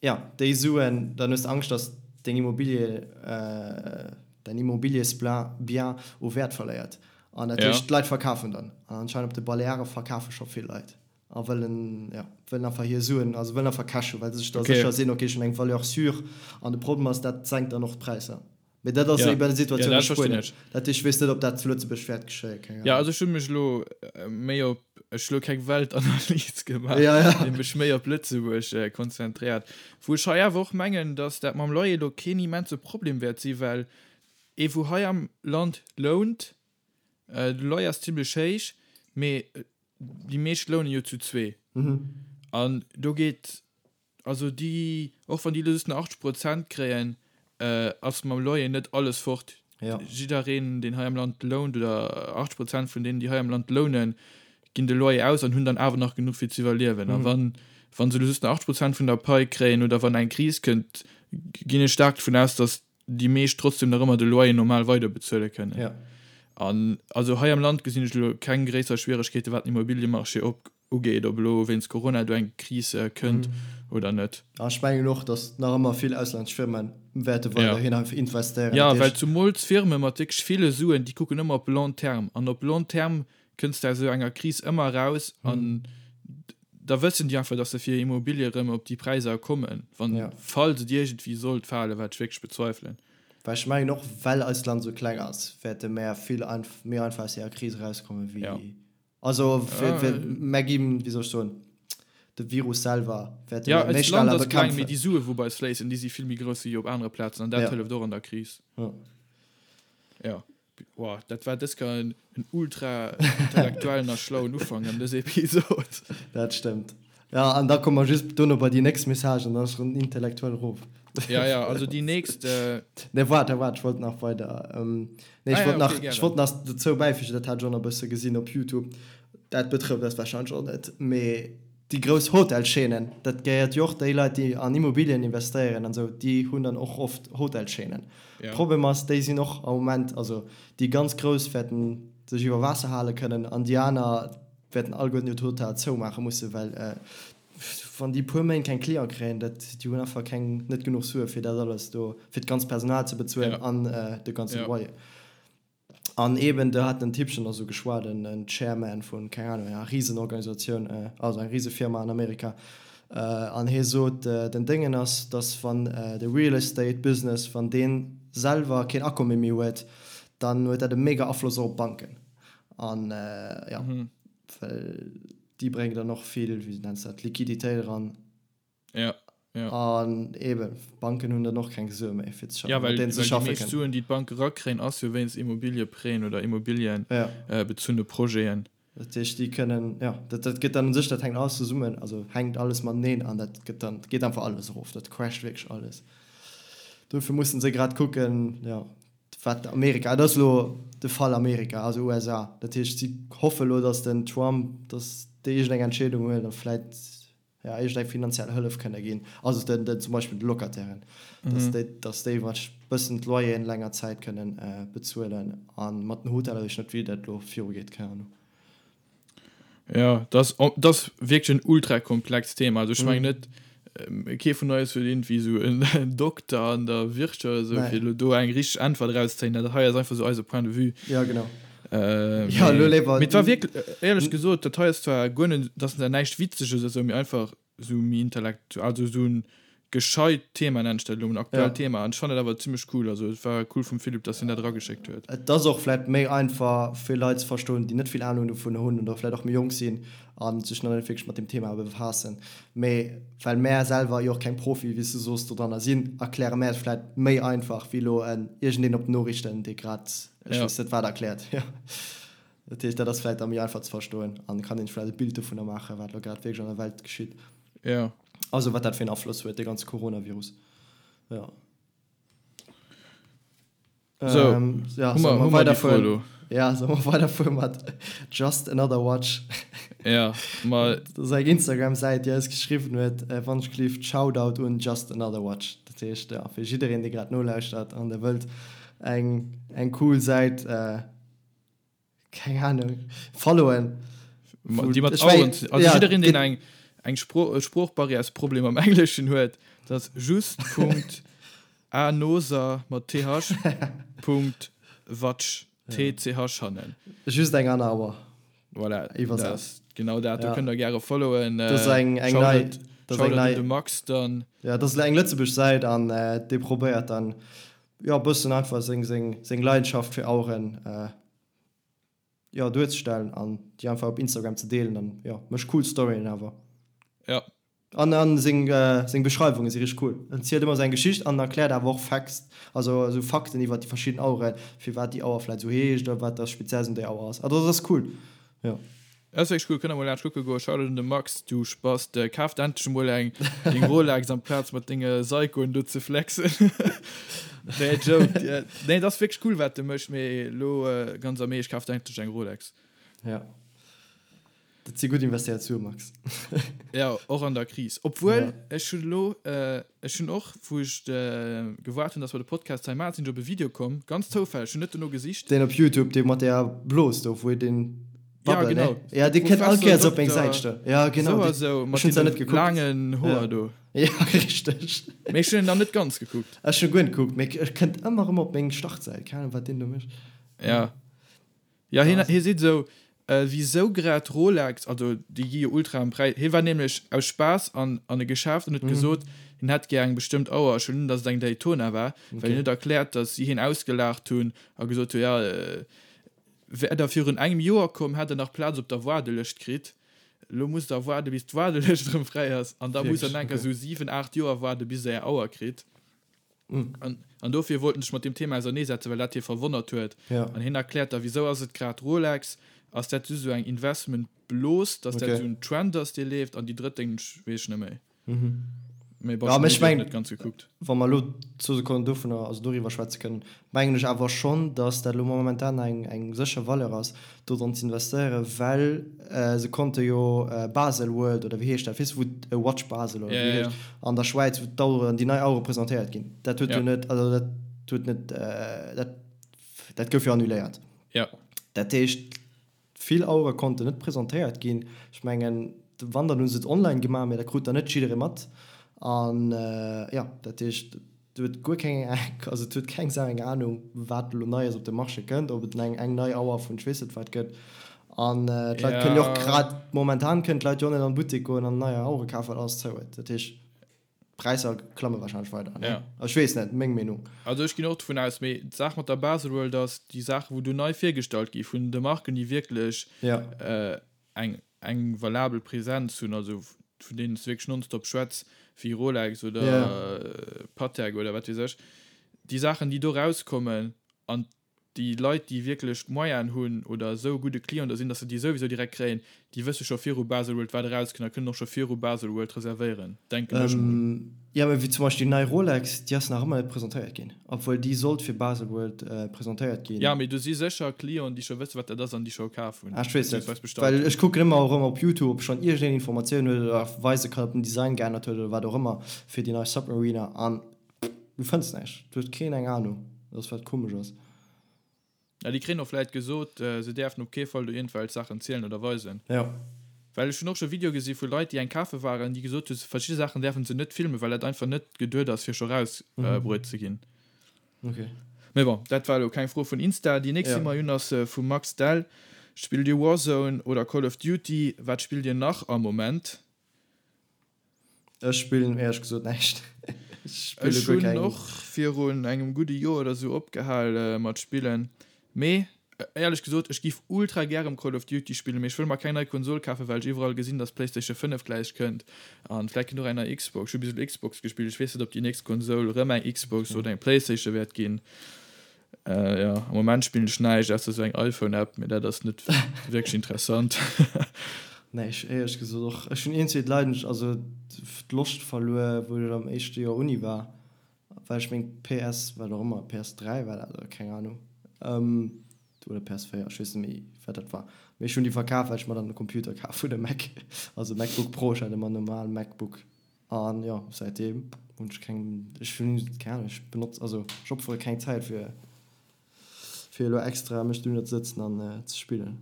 Jo, déi Suen, dann hues de Angscht, datt deng Immobilie, däin Immobiliesbien u Wäert verléiert. An dat heescht, d'Leit verkafen dann. An anscheinend op de Baleare verkafe scho vill Leit. A wëllen, jo, wëllen einfach hir Suen, also wëllen einfach Cash hunn, well se sech da sécher sinn, ok, ech hunn eng Valeur sûre. An de Problem ass, dat senkt dann och d'Präisser. Mee dat ass eben déi Situatioun a Spuenien. Dat heescht, ech weess net, ob dat zu Lëtzebuerg wäert geschéien, keng Ahnung. Jo, also ech hu mech elo méi op, ech hu elo keng Weltanalys gemaach, mee mech méi op Lëtzebuerg konzentréiert. Wou ech hei awer och mengen, datt dat mam Loyer elo keen immense Problem wäert sinn, well ee wou hei am Land lount, de Loyer ass zimlech héich, mee déi meescht lounen jo zu zwee. An do geet, also déi, och wann déi elo just nach 80 Prozent kréien, ass mam Loyer net alles fort. Jiddereen, deen hei am Land lount, oder 80 Prozent vun deenen, déi hei am Land lounen, ginn de Loyer aus an hunn dann awer nach genuch fir ze iwwerliewen. A wann, wa se elo just nach 80 Prozent vun der Pai kréien oder wann eng Kris kënnt, ginn ech staark dovun aus, datt déi meescht trotzdem nach ëmmer de Loyer normal weider bezuele kënnen. Ja. An also hei am Land gesinn ech elo keng gréisser Schwieregkeete wat den Immobiliemarché op ugeet, ob elo wéinst Corona do eng Kris kënnt oder net. A ech mengen och, datt nach ëmmer vill auslännesch Firme wäerte weiderhin einfach investéieren. Jo, well zumools Firme mat wierklech ville Suen, déi kucken ëmmer op long terme. An op long terme kënns de aus esou enger Kris ëmmer eraus an da wëssen déi einfach, datt se fir Immobilie erëm op déi Präisser kommen, wann, falls et iergendwéi sollt falen, wat ech wierklech bezweifelen. Well ech mengen och, well eist Land esou kleng ass, wäerte mär vill méi einfach aus deeër Kris erauskommen, wéi, also mär ginn, wéi soll ech soen, de Virus selwer wäerte mär méi schnell bekämpfen. Jo, eist Land ass kleng, mee déi Sue wou bei eis fléissen, déi si vill méi grouss wéi op anere Plazen an dat hëlleft och an der Kris. Jo. Wow, dat war dës Kéier en ultra intellektuellen a schlauen Ufank an dës Episod. Dat stëmmt. Ja, an da komme mer just dono bei déi nächst Message an dann ass erëm intellektuell erof. Ja, ja, also déi nächst. Nee, waart, waart, ech wollt nach weider. Nee, ech wollt nach, ech wollt nach dozou bäifügen, dat hat ech och nach e bësse gesinn op Youtube, dat betrëfft eis warscheinlech och net, mee Déi grouss Hotelchaînen, dat gehéiert jo och déi Leit, déi an Immobilien investéieren an esou, déi hunn dann och oft Hotelchaînen. Problem ass, déi sinn och am Moment, also déi ganz grouss wäerten sech iwwer Waasser hale kënnen an déi aner wäerten alleguerten hiert Hotel zoumaache mussen, well wann déi e puer Méint keng Cliente kréien, dat, déi hunn einfach keng, net genuch Sue fir dat alles do, fir d'ganzt Personal ze bezuelen an de ganze Loyer. An eben, do hat den Typchen da sou geschwat, en Chairman vun, keng Ahnung, enger Risenorganisatioun, also eng Risefirma an Amerika, an hie sot, den Déngen ass, dass wann de Real Estate Business, wann dee selwer keen Akomme méi huet, dann huet dat e mega Afloss och op d'Banken. An jo, well déi bréngen dann och vill, wéi nenns de dat, Liquiditéit eran. Ja, ja. An eben, d'Banken hunn dann och keng Sue méi fir ze schaffen, ja, well, mat deenen se schaffe kënnen. Déi meescht Suen, déi d'Banke rakréien, ass jo wéinst Immobiliëprêten oder Immobiliëbezunne ja. Projeten. Dat heescht, déi kënnen, ja, dat, dat gëtt dann u sech, dat hänkt alles zesummen, also hänkt alles mateneen an dat gëtt dann, geet einfach alles erof, dat crasht wierklech alles. Dofir mussen se grad kucken, ja. Wat Amerika, et ass elo de Fall Amerika, also USA. Dat heescht, si hoffe elo, datt den Trump, datt dee iergendeng Entscheedung huet a vläit, jo, iergendeng finanziell Hëllef kënne ginn, also den, den zum Beispill de Locatairen, datt déi, datt déi wat bëssen d'Loyeren länger Zäit kënnen bezuelen. A mat den Hoteller weess ech net, wéi dat elo virugeet, keng Ahnung. Ja, dat ass, dat ass wierklech en ultra komplext Thema. Also ech mengen net, kee vun eis huet iergendwéi esou en Dokter an der Wirtschaft oder esou, fir elo do eng richteg Äntwert erauszezéien. Dat hei ass einfach esou eise Point de vue. Ja, genau. Ja, elo léiwer. Mee et war wierklech, éierlech gesot, dat hei ass zwar guer net, dat ass näischt Witzeges oder esou, mee einfach esou méi intellekt, also esou en gescheit Thema nennen ech dat elo, en aktuellt Thema an ech fannen dat awer zimmlech cool, also et war cool vum Philippe dass hien dat erageschéckt huet. Et ass och vläit méi einfach fir Leit ze verstoen déi net vill Ahnung dovun hunn oder vläit och méi jonk sinn a sech nach net wierklech mat deem Thema befaassen. Mee well mär selwer jo och keng Profie wéi s du soos dodranner sinn, erkläre mär et vläit méi einfach wéi elo en iergendeen op den Noriichten dee grad ech weess net wat erkläert. Dat heescht, dat ass vläit da méi einfach ze verstoen an kann een sech vläit e Bild dovunner maachen, wat elo grad wierklech an der Welt geschitt. Jo. Also wat dat fir en Afloss huet, dee ganze Coronavirus. Jo. Sou, ja, hu mer, hu mer déi Fro elo? Ja, solle mer weiderfuere mat Just Another Watch? Ja, ma. Dat ass eng Instagram-Säit, déi eis geschriwwen huet, wann ech gelift, Shoutout un Just Another Watch. Dat heescht, ja, fir jiddereen, dee grad nolauschtert an dee wëllt eng, eng cool Säit, Keng Ahnung. Followen. Déi mat Aueren ze. Also jiddereen, deen eng eng Spro Sproochbarrièresproblem am Engleschen huet, dat ass just Punkt anoser mat th Punkt watch tch hannen. Just eng aner Auer. Voilà, dat ass genau dat. Do kënnt der gäre followen. Dat ass eng eng nei. Dat ass eng nei. De Max dann. Ja, dat ass eng Lëtzebuerg Säit an dee probéiert dann jo e bëssen einfach seng seng seng Leidenschaft fir Aueren jo duerzestellen an déi einfach op Instagram ze deelen an jo mécht cool Storyen awer. Ja. An an seng seng Beschreiwunge si richteg cool. En zielt ëmmer seng Geschicht an erkläert awer och Facts, also esou Fakten iwwert déi verschidden Aueren, firwat déi Auer vläit esou heescht oder wat da speziells un där Auer ass. Also dat ass cool, jo. Dat ass wierklech cool, kënnt der mol laanscht kucke goen. Shoutout un de Max, du Spast, kaf der endlech emol eng deng Rolex amplaz mat denge Seikoen do ze flexen. Nee, Joke. Nee, et ass wierklech cool wat de méchs, mee elo ganz am Eescht, kaf der endlech eng Rolex. Ja, dat si gutt investéiert Sue, Max. Ja, och an der Kris. Obwuel, ech hunn elo, ech hunn och, wou ech gewaart hunn, dass mer de Podcast hei maachen, sinn ech op e Video komm, ganz zoufälleg, ech hunn net dono gesicht. Deen op Youtube, dee mat där Blos do, wou deen Ja, genau. Ne? Ja, dee kënnt all Kéiers op eng Säit stoen. Ja, genau. Sou a sou, mat deene laangen Hoer do. Ja, richteg. Mee ech hunn en nach net ganz gekuckt. Ech hunn guer net gekuckt, mee e kënnt ëmmer erëm op meng Startsäit. Keng Ahnung, wat deen do mécht. Ja. Ja, hien, hie seet esou, wisou grad Rolex, also déi gi jo ultra am Präis. Hie war nämlech aus Spaass an, an e Geschäft an huet gesot, hien hätt gär eng bestëmmt Auer. Ech hunn un, datt et eng Daytona war, well hien huet erkläert, datt si hien ausgelaacht hunn a gesot hunn, ja, Wär der virun engem Joer komm, hätt der nach Plaz op der Waardelëscht kritt. Elo musst der waarde bis d'Waardelëscht erëm fräi ass an da musst der nach enker esou 7, 8 Joer waarde bis der är Auer kritt. An an dofir wollt en sech mat deem Thema auserneesetzen, well dat hie verwonnert huet. An hien erkläert da, wisou ass et grad Rolex? Ass dat just esou eng Investment-Blos, dass dat esou en Trend ass, dee leeft? An déi drëtt Déng weess ech net méi. Mee bon, ech hun net ganz gekuckt. Wa mer elo zwou Sekonnen dovunner, also doriwwer schwätze kënnen, mengen ech awer schonn, datt dat elo momentan eng, eng sécher Valeur ass, do dran ze investéieren, well se konnte jo Baselworld oder wéi heescht dat, weess de, wou Watch Basel oder wéi heescht, an der Schwäiz, wou d'Aueren, déi nei Auere presentéiert ginn, dat huet jo net, also dat huet net, dat, dat gouf jo annuléiert. Dat heescht, Vill Auere konnten net presentéiert ginn. Ech mengen, wann, dann hu se et online gemaach, mee dat krut dann net jidderee mat. An jo, dat heescht, et huet guer keng, also et huet keng Sau eng Anung, wat elo Neies op de Marché kënnt, ob et eng eng nei Auer vun ech weess net wat gëtt. An d'Leit kënnen jo och grad momentan kënnen d'Leit jo och net an de Buttek goen an nei Auere kafen, well alles zou huet. Dat heescht. D'Präisser klamme wahrscheinlech weider, ne? Ja. Ech weess net, meng Meenung. Also ech ginn och dovun aus, mee d'Saach mat der Baselworld ass, déi Saachen, wou do nei virgestallt gi vun de Marken, déi wierklech ja. eng, eng valabel Präsenz hunn, also vun deenen s de wierklech nonstop schwätz, wéi Rolex oder ja. Patek oder wat weess ech, déi Saachen, déi do rauskommen an. Déi Leit, déi wierklech d'Moyenen hunn oder esou e gudde Client da sinn, dass se déi souwisou direkt kréien, déi wësse scho viru Baselworld, wat erauskënnt a kënnen och scho viru Baselworld reservéieren, denken ech mol. Jo, mee wéi zum Beispill déi nei Rolex, déi ass nach ëmmer net presentéiert ginn, obwuel déi sollt fir Baselworld presentéiert ginn. Jo, mee do si sécher Clienten, déi scho wësse wat dat ass an déi scho kaf hunn, Ah, ech weess net, well ech kucken ëmmer erëm op YouTube, ob schonn iergendeen Informatioun huet oder weise kann, ob den Design geännert huet oder wat och ëmmer fir déi nei Submariner an Du fënns näischt, do huet keen eng Ahnung, dat ass wat komesch ass. Ja, déi kréien och vläit gesot, se däerfen op kee Fall do iergendwelch Saachen zielen oder weisen. Jo. Well ech hunn och scho Videoe gesi vu Leit, déi eng kafe waren, déi gesot hu verschidde Saachen däerfen se net filmen, well dat einfach net geduet ass, fir scho rausbruet ze ginn. Ok. Mee bon, dat war elo keng Fro vun Insta. Déi nächst, déi mer hunn, ass vum Max Dell. Spillt Dir Warzone oder Call of Duty? Wat spillt Dir nach am Moment? Ech spillen éierlech gesot näischt. Ech spille guer keng. Ech hunn och virun engem gudde Joer oder sou opgehal mat spillen. Mee éierlech gesot, ech giff ultra gär rem Call of Duty spillen, mee ech wëll mer keng nei Konsol kafen, well ech iwwerall gesinn, dass d'Playstation 5 gläich kënnt an vläit kënnt och eng nei Xbox. Ech hu bis elo Xbox gespillt, ech weess net, ob déi nächst Konsol rëm eng Xbox oder eng Playstation wäert ginn. Jo, am Moment spillen ech näischt ausser sou eng iPhone-App, mee dat ass net wierklech interessant. Nee, ech éierlech gesot och. Ech hunn iergendwéi d'Leidenschaft, also d'Loscht verluer, wou ech am éischte Joer Uni war, well ech meng PS, wat och ëmmer, PS3 war dat oder keng Ahnung, oder PS4, ech weess net méi, wat dat war, mee ech hunn déi verkaf, well ech mer dann e Computer kaf hunn, e Mac, also e MacBook Pro, ech hat ëmmer en normale MacBook. An jo, säitdeem hunn ech keng, ech hunn keng Ahnung, ech benotz, also ech opfere keng Zäit fir fir elo extra mech dohinner ze sëtzen an ze spillen.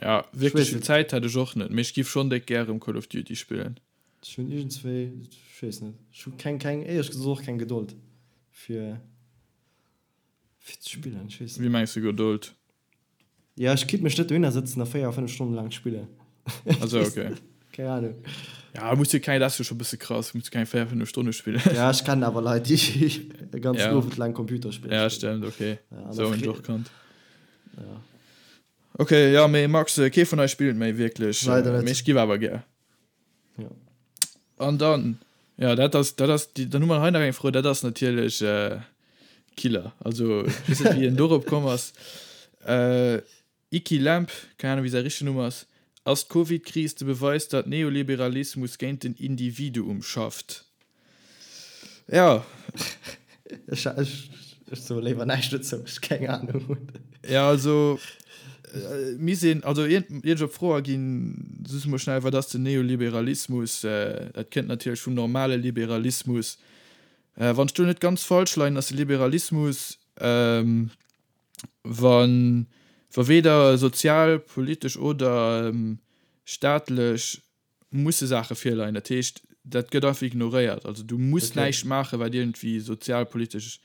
Ja, wierklech vill Zäit hätt ech och net, mee ech giff schonn déck gär erëm Call of Duty spillen. Ech hunn iergendswéi, ech weess net, ech hu keng, keng, éierlech gesot och keng Gedold fir fir ze spillen, ech weess net. Wéi mengs de Gedold? Ja, ech kinnt mech net dohinner sëtzen a 4, 5 Stonnen laang spillen. Also okay. Keng Ahnung. Ja, muss jo keng, dat ass jo scho bësse krass, muss jo keng 4, 5 Stonne spillen. Ja, ech kennen awer Leit, déi e ganzen ja. Owend laang Computerspiller spillen. Ja, stimmt, okay. Ja, so hunn ech och kannt. Ja. Okay, ja, mee Max, kee vun eis spillt méi wierklech. Leider net. Mee ech giff awer gär. Ja. An dann, ja, dat ass, dat ass, dann hu mer hei nach eng Fro, dat ass natierlech äh, Killer. Also, ech weess net, wéi en dorop komm ass. Äh, Iki Lamp, keng Ahnung, wéi säi richtegen Numm ass, Ass d'Covid-Kris de Beweis, datt Neoliberalismus géint den Individuum schafft? Ja. Ech, ech, ech soe léiwer näischt dozou, ech keng Ahnung hunn. Ja, also, mir sinn, also iert, iert ech op d'Fro aginn, soss emol schnell, wat ass den Neoliberalismus? Dat kënnt natierlech vum normale Liberalismus. Wann ech do net ganz falsch leien, ass de Liberalismus, wa, wa weder sozial, politesch oder staatlech musse Saache virleien. Dat heescht, dat gëtt einfach ignoréiert. Also du muss okay. näischt maachen, wat iergendwéi sozialpolitesch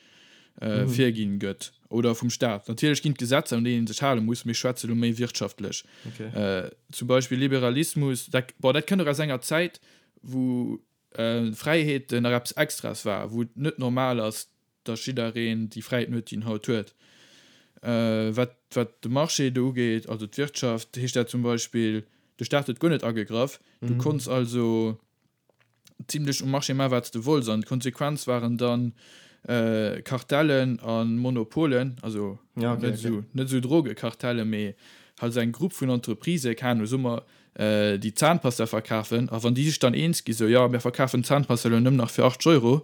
äh, mhm. virginn gëtt oder vum Staat. Natierlech ginn d'Gesetzer, un deenen een sech hale muss, mee ech schwätze lo méi wirtschaftlech. Okay. Äh, zum Beispill Liberalismus, dat, bon, dat kënnt och aus enger Zäit, wou äh, Fräiheeten nach eppes Extras war, wou et net normal ass, dass jiddereen déi Fräiheeten huet, déi en haut huet. Wat, wat de Marché do ugeet, also d'Wirtschaft, heescht dat zum Beispill, de Staat huet guer net agegraff. Du konns also zimlech um Marché maachen, wat s de wollts. An d'Konsequenz waren dann Kartellen a Monopolen, also net esou, net esou Drogekartellen, mee halt esou eng Grupp vun Entreprisë, keng Ahnung, soe mer, déi Zahnpasta verkafen. A wann déi sech dann eens gi sou, jo, mir verkafen d'Zahnpasta elo nëmmen nach fir 80 Euro,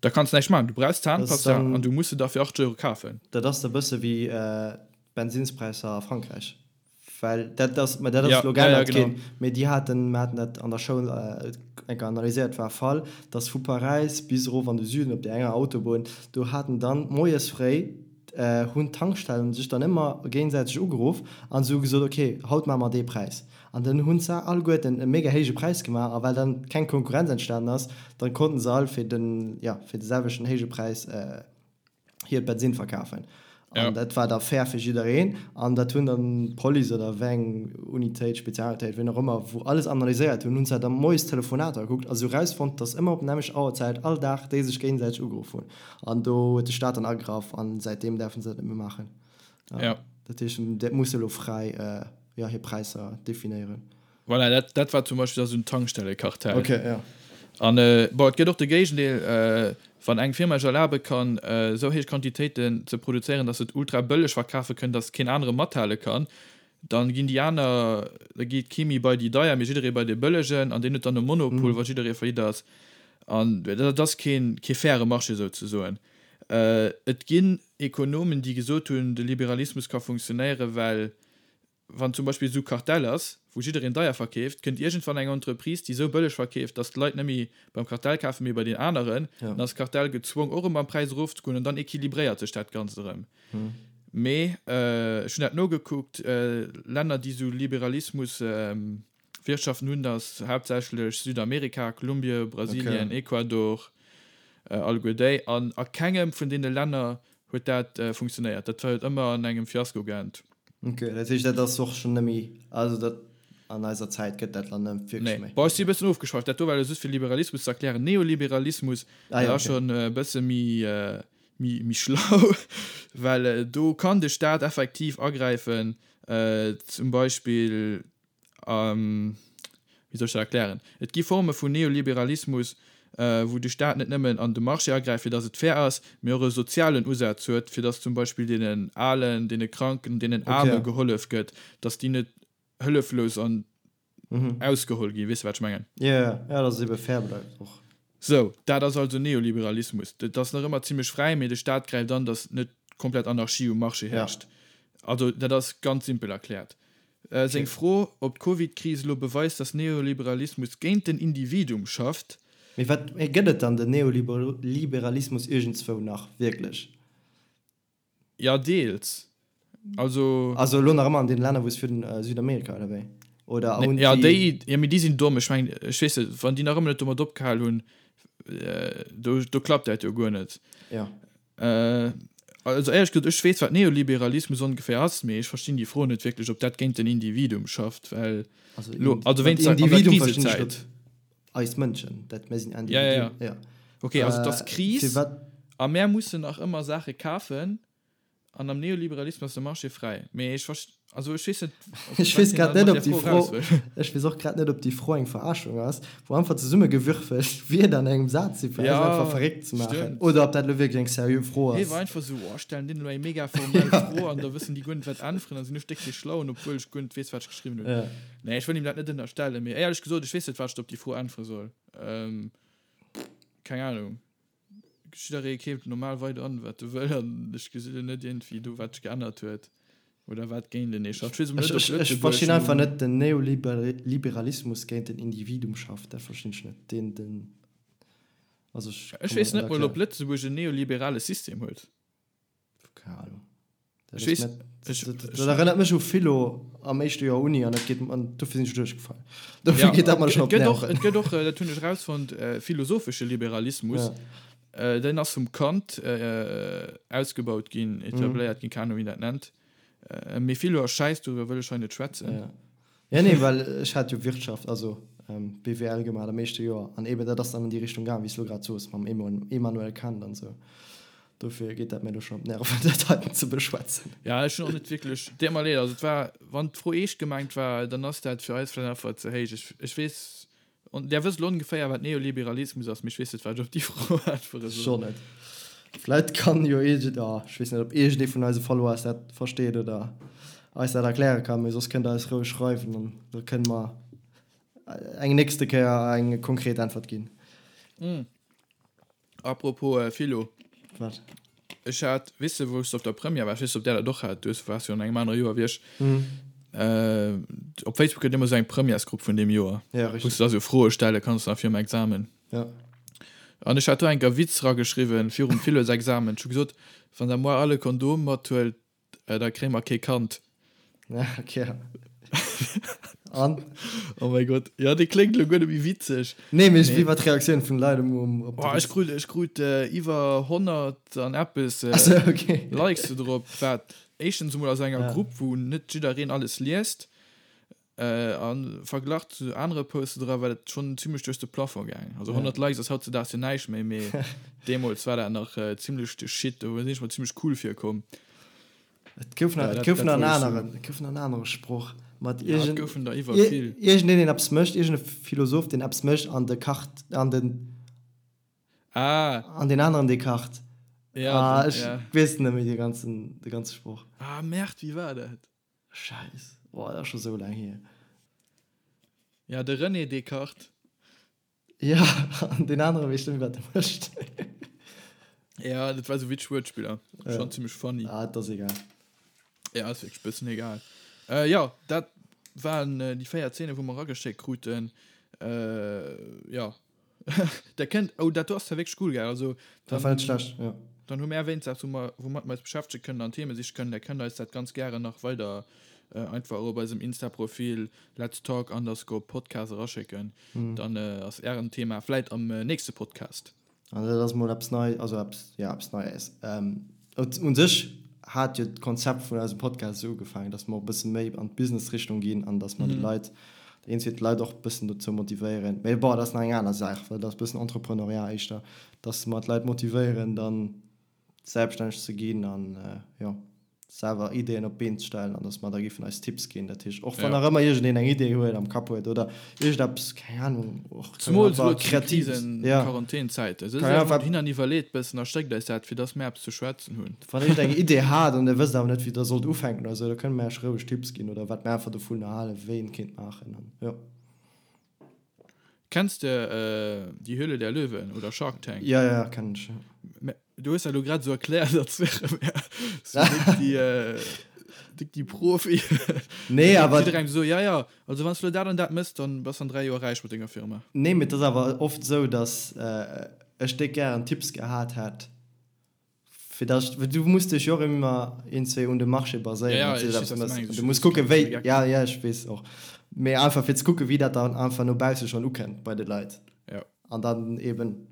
Da kanns näischt maachen. Du brauchs Zahnpasta an du muss se da fir 8 Euro kafen. Dat ass e bësse wéi d'Bensinnspräisser a Frankräich. Well dat ass, mä dat ass elo geännert ginn, mee déi haten, mir haten dat an der Schoul eng Kéier analyséiert, war e Fall, datt vu Paräis bis erof an de Süden op där enger Autobunn, do haten dann moies fréi hunn d'Tankstellen sech dann ëmmer géinsäiteg ugeruff an se hu gesot, ok, haut maache mer dee Präis. An dann hunn se alleguerten e mega héije Präis gemaach a well dann keng Konkurrenz entstanen ass, dann konnten se all fir den, jo, fir de selwechten héije Präis hiert Bensinn verkafen. An dat war da fair fir jiddereen. An dat hunn dann d'Police oder wéi eng Unitéit, Spezialunitéit, wien och ëmmer, wou alles analyséiert hunn, hunn se da moies d'Telefonater gekuckt a se hu rausfonnt, dass ëmmer op nämmlecht Auerzäit all Dag déi sech géinsäiteg ugeruff hunn. An do huet de Staat dann agraff an säitdeem däerfe se dat net méi maachen. Ja. Dat heescht, dat muss elo fräi ja, hir Präisser definéieren. Voilà, dat, dat war zum Beispill da sou en Tankstellekartell. Okay, ja. An bon, et gëtt och de Géigendeel, wann eng Firma sech erlabe kann, esou héich Quantitéiten ze produzéieren, datt se et ultra bëlleg verkafe kënnen, datt keen anere mathale kann, dann ginn déi aner, da geet kee méi bei déi deier, mee jidderee bei dee bëllegen an deen huet dann e Monopol, wa jidderee faillite ass. An dat ass keen, kee faire Marché souzesoen. Et ginn Ekonomen, déi gesot hunn, de Liberalismus ka funktionéieren, well Wann zum Beispill esou Kartell ass, wou jiddereen deier verkeeft, kënnt iergendwann eng Entreprise, déi esou bëlleg verkeeft, datt d'Leit net méi beim Kartell kafen, mee bei deen aneren. Dann ass d'Kartell gezwong, och erëm am Präis erofzegoen an dann equilibréiert sech dat Ganzt erëm. Mee ech hunn dat nogekuckt, Länner, déi esou Liberalismus Wirtschaften hunn, ass haaptsächlech Südamerika, Kolumbie, Brasilien, Ecuador, alleguer déi. An a kengem vun deene Länner huet dat funktionéiert. Dat huet ëmmer an engem Fiasko geend. Ok, dat heescht dat ass och schonn net méi, also dat an eiser Zäit gëtt dat dann net wierklech méi. Nee, bon ech si e bëssen ofgeschweift, dat do war elo just fir Liberalismus ze erklären. Neoliberalismus, dat ass schonn e bësse méi, méi, méi schlau, well do kann de Staat effektiv agräifen, zum Beispill Wéi soll ech dat erklären? Et gi Forme vun Neoliberalismus, wou de Staat net nëmmen an de Marché agräift, fir datt et fair ass, mee och e sozialen Usaz huet, fir datt zum Beispill deenen Alen, deene Kranken, deenen Aarme gehollef gëtt, datt déi net hëlleflos an ausgeholl ginn. Weess de, wat ech mengen? Jo, jo, jo, datt et ebe fair bleift och. Sou, dat ass also Neoliberalismus. Et ass nach ëmmer zimlech fräi, mee de Staat gräift an, datt net komplett Anarchie um Marché herrscht. Also, dat ass ganz simpel erkläert. Seng Fro, ob d'Covid-Kris elo beweist, datt Neoliberalismus géint den Individuum schafft. Mee wat gëtt et dann den Neoliberalismus iergendzwou nach wierklech? Jo, deels. Also. Also elo nach ëmmer an deene Länner, wou s virun, Südamerika oder wéi? Oder hunn déi. Jo, déi, jo, mee déi sinn domm. Ech mengen, ech weess net, wann déi nach ëmmer net domat opgehal hunn, do, do klappt dat jo guer net. Jo. Also éierlech gesot, ech weess wat Neoliberalismus ongeféier ass, mee ech verstinn déi Fro net wierklech, ob dat géint den Individuum schafft, well elo, also wéinst der, an der Krisezäit. Eis Mënschen, dat mir sinn Individuen. Ja, ja, ja. Ok, also et ass Kris a mär mussen nach ëmmer Saache kafen. An am Neoliberalismus ass de Marché fräi. Mee ech verst-, also ech weess net, ob, Ech weess grad net, ob déi Fro, ech weess och grad net, ob déi Fro eng Verarschung ass, wou einfach zesummegewürfelt Wierder an engem Saz sinn, fir eis einfach verréckt ze maachen, oder ob dat elo wierklech eng seriö Fro ass. Hie war einfach esou, oh, ech stellen deenen elo eng mega formell Fro an da wëssen déi guer net, wat äntweren, da sinn ech déck dee Schlauen, obwuel ech guer net weess, wat ech geschriwwen hunn. Nee, ech wëll him dat net ënnerstellen, mee éierlech gesot, ech weess net, wat ech op déi Fro äntwere soll. Keng Ahnung. Jidderee keeft normal weider an, wat e wëll, an ech gesi lo net iergendwéi do, wat sech geännert huet oder wat géint enee schafft. Ech weess emol net, ob Lëtzebuerg. Ech verstinn einfach net, den Neoliberalismus géint den Individuum schafft, dat verstinn ech net. Deen, den, also ech. Ech weess net mol, ob Lëtzebuerg en neoliberale System huet. Keng Ahnung. Dat, wees, ech, dat erënnert mech u Philo am éischte Joer Uni an dat geet an dofir sinn ech duerchgefall. Dofir ja, geet dat mer schon op d'Nerven. Et gëtt och, dat hunn ech rausfonnt, äh, philosophesche Liberalismus. Ja. Äh, den ass vum Kant äh, ausgebaut ginn, etabléiert mhm. ginn, keine Ahnung, wéi dat nennt. Äh, mee Philo ass schäiss, doriwwer wëll ech hei net schwätzen. Ja. Ja, nee, well ech hat jo Wirtschaft, also BWL gemaach am éischte Joer an eben dat ass dann an déi Richtung gaang, wéi s de elo grad soos, mam Emmanuel Kant an esou. Dofir geet dat mir elo schonn op d'Nerven, dat heiten ze beschwätzen. Ja, ech hunn och net wierklech, deet mer leed, also et war, wann d'Fro eescht gemengt war, dann ass dat fir eis vläicht einfach ze héich. Ech, ech weess, Där wësst elo ongeféier, wat Neoliberalismus ass, mee ech weess net, wat ech op déi Fro äntwere soll. Schonn net. Vläit kann jo iergend, oh, ech weess net, ob iergendee vun eise Followers dat versteet oder eis dat erkläre kann, mee soss kënnt der eis roueg schreiwen an da kënne mer eng nächste Kéier eng konkret Äntwert ginn. Apropos Philo. Wat? Ech hat, weess de, wou ech op der Première war, ech weess net, ob där dat och hat, du waars jo an engem anere Joer wéi ech. Op Facebook gëtt ëmmer esou eng Premièresgrupp vun deem Joer. Ja, richtig. Wou s de da sou Froe stelle kanns nach virum Examen. Ja. An ech hat do enker Witz rageschriwwen virum Philosexamen. Ech hu gesot, wann der moar all e Kondom mathuelt, da kréie mer kee Kand. Ja, okay. An? Oh mäi Gott. Ja, dee kléngt elo guer net méi witzeg. Nee, mee wéi war d'Reaktioun vun de Leit um, um, op de Witz? Ech krut, ech krut iwwer 100 an eppes Ach sou, okay. Likes do drop, wat éischtens emol aus enger Grupp, wou net jiddereen alles liest, a verglach zu anere Poste dra war dat schonn zimmlech duerch de Plafond gaangen. Also 100 Likes ass hautzedaags jo näischt méi, mee deemools war dat nach zimmlech de Shit, do sinn ech mer zimmlech cool virkomm. Et gouf nach, et gouf nach en aneren, et gouf nach en anere Sproch. Mat ja, iergend, goufen der iwwer vill. Iergendeen, deen eppes mécht, iergend e Philosoph, deen eppes mécht an de kacht an den. Ah. An deen aneren, dee kacht. Ja, ah, ech ja. weess net méi de ganzen, de ganze Sproch. Ah, Merde, wéi war dat? Scheiss. Boah, dat ass scho sou laang hier. Ja, de René Descartes. Ja, an deen anere weess net méi, wat e mécht. Ja, dat war sou witzeg Wuertspiller. Ja. Schon zimmlech funny. Ah, dat ass egal. Ja, ass wierklech bëssen egal. Äh, ja, dat waren äh, déi 4 Zeene, wou mer erageschéckt kruten. Äh, ja. Der kënnt, oh, dat do ass zwar wierklech cool, gell? Also, Dat war net schlecht, ja. Dann hu mär wéinst eppes, wou mer, woumat mer eis beschäftege kënnen an Theme siche kënnen. Der kënnt eis dat ganz gären nach weider äh, einfach op eisem Insta-Profil Let's Talk underscore Podcast eraschécken. Dann ass ären Thema vläit am nächste Podcast. An dat ass mol eppes Nei, also eppes, jo, eppes Neies. U sech hat jo d'Konzept vun eisem Podcast esou ugefaangen, datt mer och e bësse méi an d'Business-Richtung ginn an datt mer de Leit, eenzel d'Leit och e bëssen dozou motivéieren, mee bon, dat ass nach eng aner Saach, well dat ass e bëssen Entrepreneuriat éischter, datt mer d'Leit motivéieren, dann selbststänneg ze ginn an, jo. selwer Ideeën op d'Been ze stellen an dass mer da giffen eis Tipps ginn. Dat heescht, och wann nach ëmmer iergendeen eng Idee huet, am Kapp huet oder iergendeppes, keng Ahnung, och Zemools elo zu de Krisen-, Quarantänzäiten. Sëtzt iech emol dohin an iwwerleet bëssen a schéckt eis dat, fir dass mir eppes ze schwätzen hunn. Wann iergend eng Idee hat an dir wësst awer net, wéi der sollt ufänken oder esou, da kënne mir iech roueg Tipps ginn oder wat mir einfach dovunner halen, wéi een kéint maachen an jo. Kenns de Die Höhle der Löwen oder Shark Tank? Jo, jo, kennen ech, jo. Du hues dat elo grad esou erkläert, als wäre mir sou déck déi, déck déi Profi. Nee, awer. Jidderengem esou, ja, ja, also wann s du elo dat an dat méchs, dann bass an 3 Joer räich mat denger Firma. Nee, mee et ass awer oft esou, dass ech déck gären Tipps gehat hätt, fir dass ech, well du muss dech jo och ëmmer iergendzwéi un de Marché baséieren, Ja, ja, ech weess, wat s du mengs. Du muss kucken, wéi, ja, ja, ech weess och, mee einfach fir ze kucken, wéi dat dann einfach no bausse schonn ukënnt bei de Leit. Ja. An dann eben.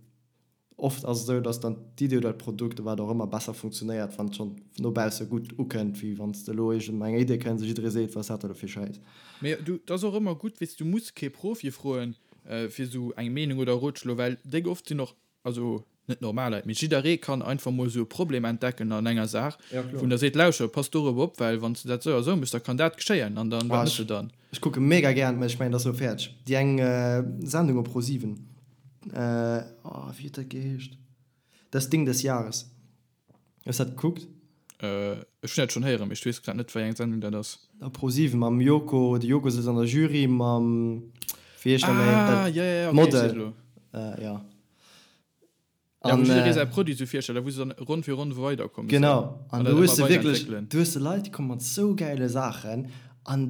Oft ass et esou, dass dann d'Idee oder d'Produkt oder wat och ëmmer besser funktionéiert, wann et schonn no bausse gutt ukënnt, wéi wann s de elo iergend mat enger Idee kënns a jidderee seet, wat ass dat da elo fir Schäiss. Mee du, et ass och ëmmer gutt, weess, du muss kee Profi froen fir esou eng Meenung oder Rotschlo, well déck oft sinn och, also net normal Leit, mee jidderee kann einfach mol esou e Problem entdecken an enger Saach, wou en da seet, lauschter, pass dorop op, well wann s de dat esou a esou méchs, da kann dat geschéien an dann, wat méchs de dann? Ech kucke mega gären, mä ech mengen, et ass elo fäerdeg, déi eng Sendung op Pro7. Oh, wéi huet dat geheescht? Das Ding des Jahres. Hues dat gekuckt? Ech hunn dat schonn héieren, mee ech weess grad net, wéi eng Sendung dat ass. Op Pro7 mam Joko, de Joko sëtzt an der Jury mam, wéi heescht dat méi? Ah, ja, ja, ja, okay, ech weess elo. Ja. Ja, wou jidderee säi Produit sou virstellt a wou se dann Ronn fir Ronn weiderkommen. Genau, an do hues de wierklech, do hues de Leit, déi komme mat sou gäile Saachen an,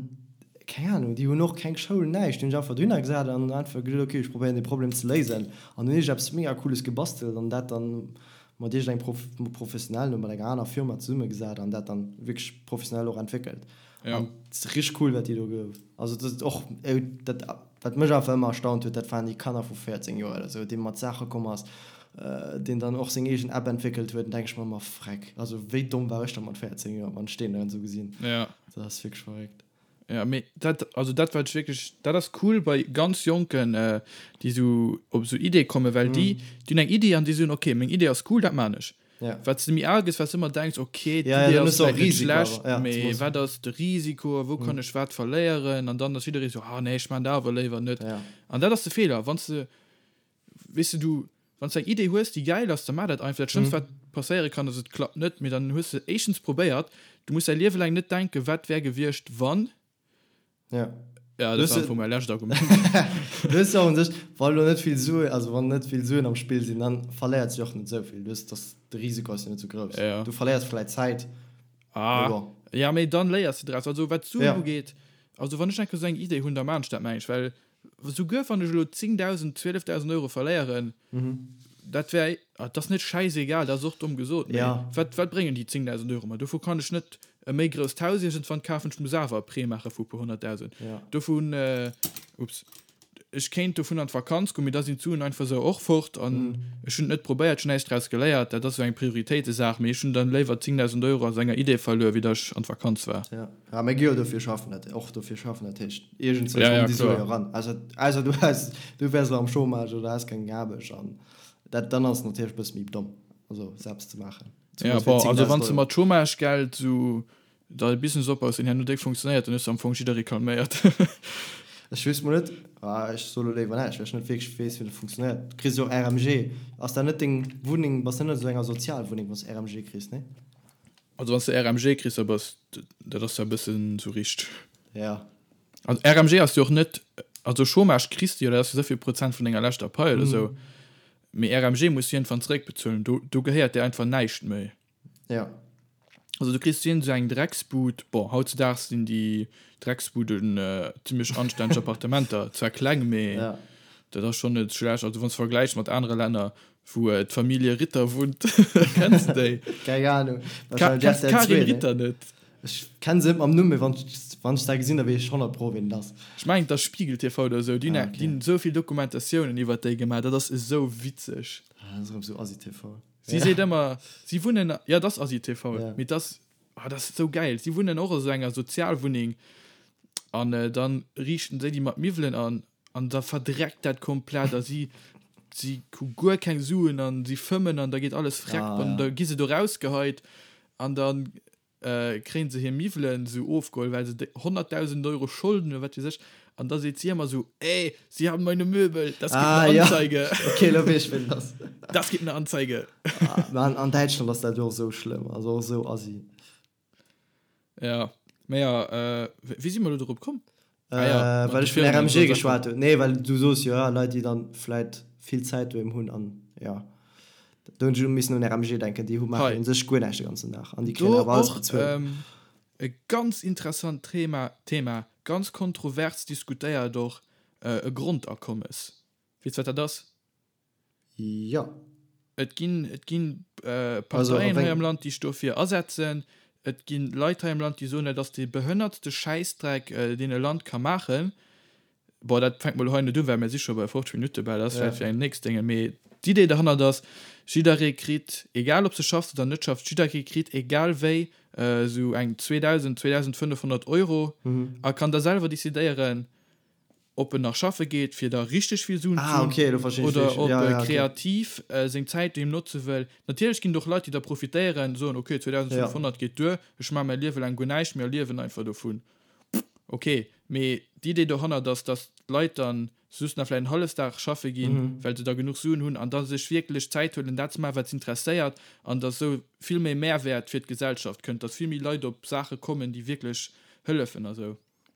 keng Ahnung, déi hunn och keng Schoul, näischt, déi hunn sech einfach dohinner gesat an einfach geduet, okay, ech probéieren dee Problem ze léisen an hunn iergendeppes mega Cooles gebastelt an dat dann mat iergendengem Prof, Professionellen oder mat enger aner Firma zesummegesat an dat dann wierklech professionell och entwéckelt. An et ass richteg cool, wat déi do ge, also dat ass och, dat Wat mech einfach ëmmer erstaunt huet, dat waren déi Kanner vu 14 Joer oder sou, dee mat Saache komm ass, deen dann och seng eegen App entwéckelt huet. Dann denke ech mer ëmmer, Freck, also wéi domm war ech da mat 14 Joer, wann ech deen dann esou gesinn. Ja. Dat ass wierklech verréckt. Ja, mee dat, also dat wat ech wierklech, dat ass cool bei ganz Jonken, déi sou op sou Iddie kommen, well déi, déi hunn eng Iddi an déi soen, okay, meng Iddi ass cool, dat maan ech. Ja. Wat s de méi al gëss, wat s de ëmmer denks, ok, Ja, ja, d'Idee dann ass hues de och vläit net Risiko schlecht, awer, ja, mee zemools. wat ass de Risiko a wou kann ech wat verléieren? An dann ass jidderee sou, ah nee, ech maan dat awer léiwer net. Ja. An dat ass de Feeler, wann s de, weess de, du, wann s de eng Idee hues, déi gäil ass, da maach dat einfach. Dat Schlëmmst, wat passéiere kann, ass et klappt net, mee dann hues de éischtens probéiert. Du muss däi Liewe laang net denken, wat wär gewiescht, wann. Ja. Ja, dat war am Fong mäi lescht Argument. Du hues jo och un sech, wa lo net vill Suen, also wann net vill Suen am Spill sinn, dann verléiert sech och net esou vill. Du hues, dass de Risiko ass jo net esou grouss. Ja. Du verléiers vläit Zäit, mee Ah, bon. ja, mee dann léiers de draus. Also wat d'Suen Ja. ugeet, also wann ech eng Kéier esou eng Idee hunn, da maan ech dat, meng ech, well Souguer wann ech elo 10.000, 12.000 Euro verléieren, dat wär, dat ass net schäisegal, dat ass och domm gesot, mee wat, wat bréngen déi 10.000 Euro mer? Dovu kann ech net e méi grousst Haus iergendwann kafen, ech muss awer e Prêt maache vu e puer honnertdausend. Dovun, ups, ech kéint dovun an d'Vakanz goen, mee da sinn d'Suen einfach esou och fort an ech hunn et net probéiert, ech hunn näischt draus geléiert. Dat ass esou eng Prioritéitesaach, mee ech hunn dann léiwer 10.000 Euro aus enger Idee verluer, wéi datt ech an d'Vakanz war. Ja, mir gi jo dofir schaffen, dat och dofir schaffen, dat heescht iergendzwou Ja, ja, kommen déi Sue kloer. jo eran. Ausser, ausser du has, du wäers elo am Chômage oder has keng Aarbecht an dat, dann ass et natierlech e bësse méi domm, also se eppes ze maachen. Ja, Zemools fir bon, also 10.000 wann s de Euro. mat Chômagegeld esou. Da e Business opbaus, deen herno déck funktionéiert, dann hues de am Fong jidderee calméiert. Ech weess mol net, ah ech soe lo léiwer näischt, well ech net wierklech weess, wéi dat funktionéiert. Du kriss jo och RMG. Ass dat net deng Wunneng, bass de net an esou enger Sozialwunneng, wann s de RMG kriss, nee? Also wann s de RMG kriss, da bass, dat ass ja e bëssen esou richt. Ja. Also RMG ass jo och net, also Chômage kriss de jo, dat ass jo esou vill Prozent vun denger leschter Pai oder esou, mee RMG muss du iergendwann zeréckbezuelen, do, do gehéiert dir einfach näischt méi. Ja. Also du kriss iergend esou eng Drecksbud, bon hautzedaags sinn déi Drecksbuden zimlech anstänneg Appartementer, zwar kleng, mee ja. dat ass schonn net schlecht. Also wann s de vergläichs mat anere Länner, wou d'Famillje Ritter wunnt, kenns de déi? Keng Ahnung. Ka kenns d'Karin Ritter net? Ech kenn se net mam Numm, mee wann wann ech dat gesinn, da weess ech 100 pro ween et ass. Ech mengen et ass Spiegel TV oder esou, déi hunn Ah, okay. déi hunn esou vill Dokumentatiounen iwwert déi gemaach, dat ass esou witzeg. Ah, dat ass erëm esou Asi-TV. Si seet ëmmer, si wunnen, jo, et ass Asi TV, mee et ass, oh, dat ass esou gäil. Si wunnen och a sou enger Sozialwunneng an dann riichten si déi mat Miwwelen an an da verdreckt dat komplett a si, si hu guer keng Suen an si fëmmen an da geet alles freck an da gi se do rausgeheit an dann kréien se hir Miwwelen esou ofgeholl, well se 100.000 Euro Scholden hunn, wat weess ech, an da seet si ëmmer esou, Ey, Sie haben meine Möbel, das gibt ah, eine Anzeige. Ja. Okay, lo weess ech, ween et ass. Das gibt eine Anzeige. Ah, mä an, an Däitschland ass dat jo och esou schlëmm, also och esou assi. Ja, mä ja, äh, wéi si mer elo dorop komm? Ah ja, mat Äh, well de ech vun Firmen an RMG esou Saachen. geschwat hunn. Nee, well du soos jo, ja, Leit, déi dann vläit vill Zäit doheem hunn an ja. Do hunn ech elo missen un RMG denken, déi hu maachen Hei. u sech guer näischt de ganzen Dag an déi kréien Do awer alles och bezuelt. ähm, e ganz interessant Thema, Thema, ganz kontrovers diskutéiert och, äh, e Grondakommes. Weess wat dat ass? Jo. Et ginn, et ginn Parteien hei am Land, déi sech dofir asetzen. Et gi Leit hei am Land, déi soen, dat ass dee behënnertste Schäissdreck, deen e Land ka maachen. Bon, dat fänkt mol hei net un, well mir si scho bei 50 Minutte bal. Dat ass vläicht fir eng nächst Dénge. Mee d'Idee derhannert ass, jidderee kritt, egal ob s de schaffs oder net schaffs, jidderee kritt egal wéi esou eng 2.000, 2.500 Euro a kann da selwer decidéieren, ob en nach schaffe geet, fir da richteg vill Suen ze Ah, hunn, okay, elo verstinn ech oder wéi ech, ob ja, e ja, okay. kreativ seng Zäit doheem notze wëll. Natierlech ginn et och Leit, déi da profitéieren, soen, okay, Ja. 2.500 geet duer, ech maache mäi Liewe laang guer näischt méi a liewen einfach dovun. Okay, mee d'Idee dohannert ass, dass d'Leit dann just nach vläicht en Hallefdag schaffe ginn, well se da genuch Suen hunn an da sech wierklech Zäit huelen, dat ze maachen, wat s'interesséiert an dass esou vill méi Mehrwäert fir d'Gesellschaft kënnt, dass vill méi Leit op Saache kommen, déi wierklech hëllefen a sou.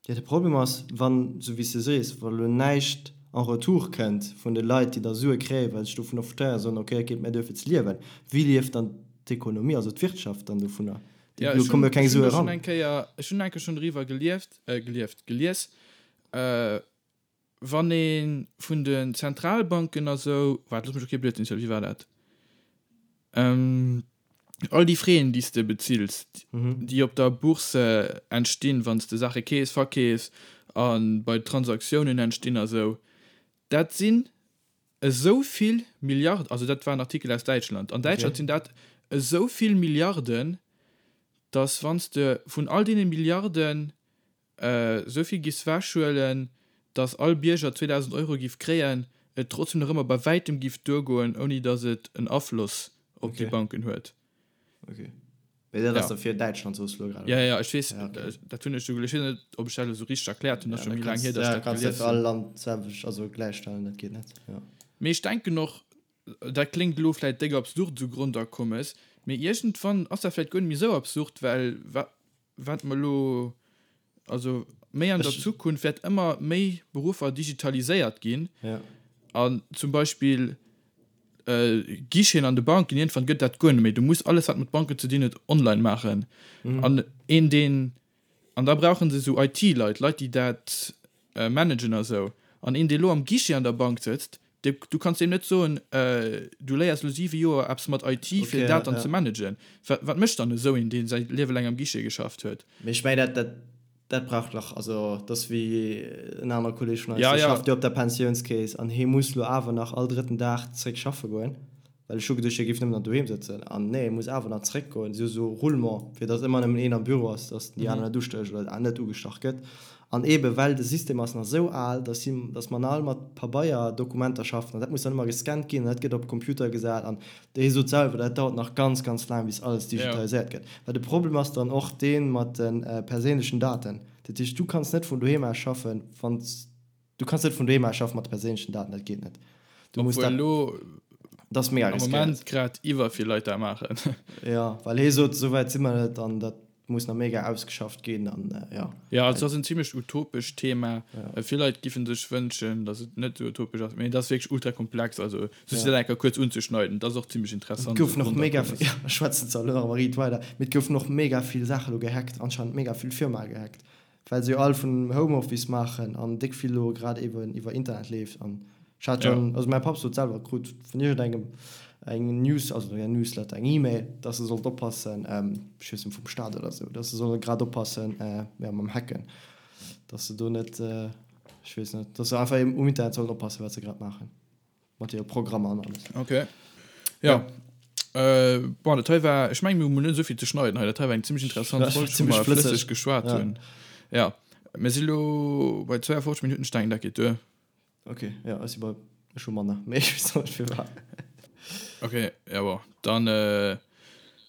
Jo, de Problem ass, wann, esou wéi s de sees, wa lo näischt en retour kënnt vun de Leit, déi da Sue kréien, well se sech dovunner profitéieren, soen, ok, et geet mir duer fir ze liewen, wéi lieft dann d'Ekonomie, also d'Wirtschaft dann dovunner? Jo, Do ech komme hunn, jo keng ech hunn Sue do schonn eran. eng Kéier, ech hunn eng Kéier schonn driwwer gelieft, gelieft, gelies, Wann ee vun den Zentralbanken a sou, waart, looss mech och kee Blödsinn zielen, wéi war dat? All déi Fräen, déi s de bezills, déi op der Bourse entstinn, wann s de Saache keefs, verkeefs a bei Transaktiounen entstinn a sou, dat sinn esou vill Milliarden, also dat war en Artikel aus Däitschland, an Däitschland sinn dat esou vill Milliarden, datt wann s de vun all deene Milliarden esou vill giffs wechhuelen, dass all Bierger 2.000 Euro giff kréien, et trotzdem nach ëmmer bei wäitem giff duergoen, ouni dass et en Afloss op déi Okay. Banken huet. Okay. Mee dat ass Ja. da fir Däitschland, soos du elo grad, Ja, oder? ja, ech weess, Ja, okay. dat hunn ech esou gelies. Ech weess net, ob ech dat elo esou richteg erkläert hunn, ass Ja, scho da méi laang kanns, hier, dass ech ja, dat kanns net gelies fir all hunn. Land d'selwecht, also gläichstellen, dat geet net, ja. Mee ech denken och, dat kléngt elo vläit déck absurd, esou Grondakommes, mee iergendwann ass dat vläit guer net méi esou absurd, well wa wat mer elo, also méi an der Zukunft wäert ëmmer méi Beruffer digitaliséiert ginn an zum Beispill Guicheten an de Banken, iergendwann gëtt dat guer net méi. Du muss alles wat mat Banken ze dinn huet online maachen an een deen, an da brauche se esou IT-Leit, Leit déi dat managen a sou. An een dee lo am Guichet an der Bank sëtzt, dee, du kanns deem net soen, du léiers lo 7 Joer eppes mat IT fir Okay, dat dann ja. ze managen. Wat, wat mécht dann esou een, dee säi Liewe laang am Guichet geschafft huet? Mee ech mengen, dat, dat, dat brauch nach, also dat ass wéi en anere Kolleg vun eis, Ja, dee ja. schafft jo op der Pensiounskeess an hee muss lo awer nach all drëtten Dag zréck schaffe goen, well ech hu geduecht, hie géif nëmmen nach doheem sëtzen an nee, hie muss awer nach zréckgoen. Si hu sou Roulement, fir datt ëmmer nëmmen een am Büro ass, datt déi aner net ustécht oder net ugestach gëtt. An eebe well de System ass nach esou al, dass si, dass mer nach all mat Pabeierdokumenter schaffen an dat muss dann ëmmer gescannt ginn an dat gëtt op Computer gesat an hie sot selwer, dat dauert nach ganz, ganz laang bis alles digitaliséiert gëtt. Well de Problem ass dann och dee mat de perséinlechen Daten. Dat heescht, du kanns net vun doheem aus schaffen, wann s Du kanns net vun doheem aus schaffen mat de perséinlechen Daten, dat geet net. Du muss dat. Elo dat ass mega am Moment grad iwwer vill Leit dat maachen. Ja, well hie sot, esou wäit si mer net an dat muss nach mega ausgeschafft ginn an ja. Ja, also ass en zimmlech utopescht Thema. Ja. Vill Leit giffen sech wënschen, datt et net esou utopesch ass, mee et ass wierklech ultra komplex. Also just dat eng Kéier kuerz unzeschneiden, dat ass och zimmlech interessant. Et goufen och mega, ja, ech schwätzen zwar elo nach ëmmer riit weider, mee et goufen och mega vill Saache lo gehackt, anscheinend mega vill Firmae gehackt. Well se jo all vun Homeoffice maachen an déck vill elo grad eben iwwer Internet leeft an ech hat schon, also mäi Papp sot selwer, krut vun iergendengem eng News, also eng Newsletter, eng E-Mail, dass e sollt oppassen, ech weess net, vum Staat oder sou, dass se solle grad oppassen, jo, mam Hacken, dass se do net, ech weess net, dass se einfach eben um Internet sollen oppassen, wat se grad maachen. Mat hire Programmer an alles. Ok. Ja. Äh, bon, dat hei war, ech mengen, mir hunn net esou vill ze schneiden hei. Dat hei war eng zimmlech interessant Folg, wou mer flësseg geschwat hunn. Ja. Mir si lo bei 52 Minutten, ech denken, dat geet duer. Ok, ja, ech si bei, ech hu manner, mee ech weess och net firwat. Ok, ja bon, dann äh,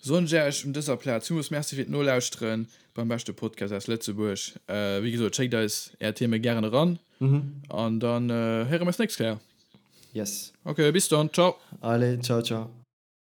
soen ech Iech un dëser Plaz villmools Merci fir d'Nolauschteren beim beschte Podcast aus Lëtzebuerg. Äh, wéi gesot, schéckt eis Är Theme gären eran. An dann äh, héiere mer eis nächst Kéier. Yes. Ok, bis dann, ciao. Allez, ciao, ciao.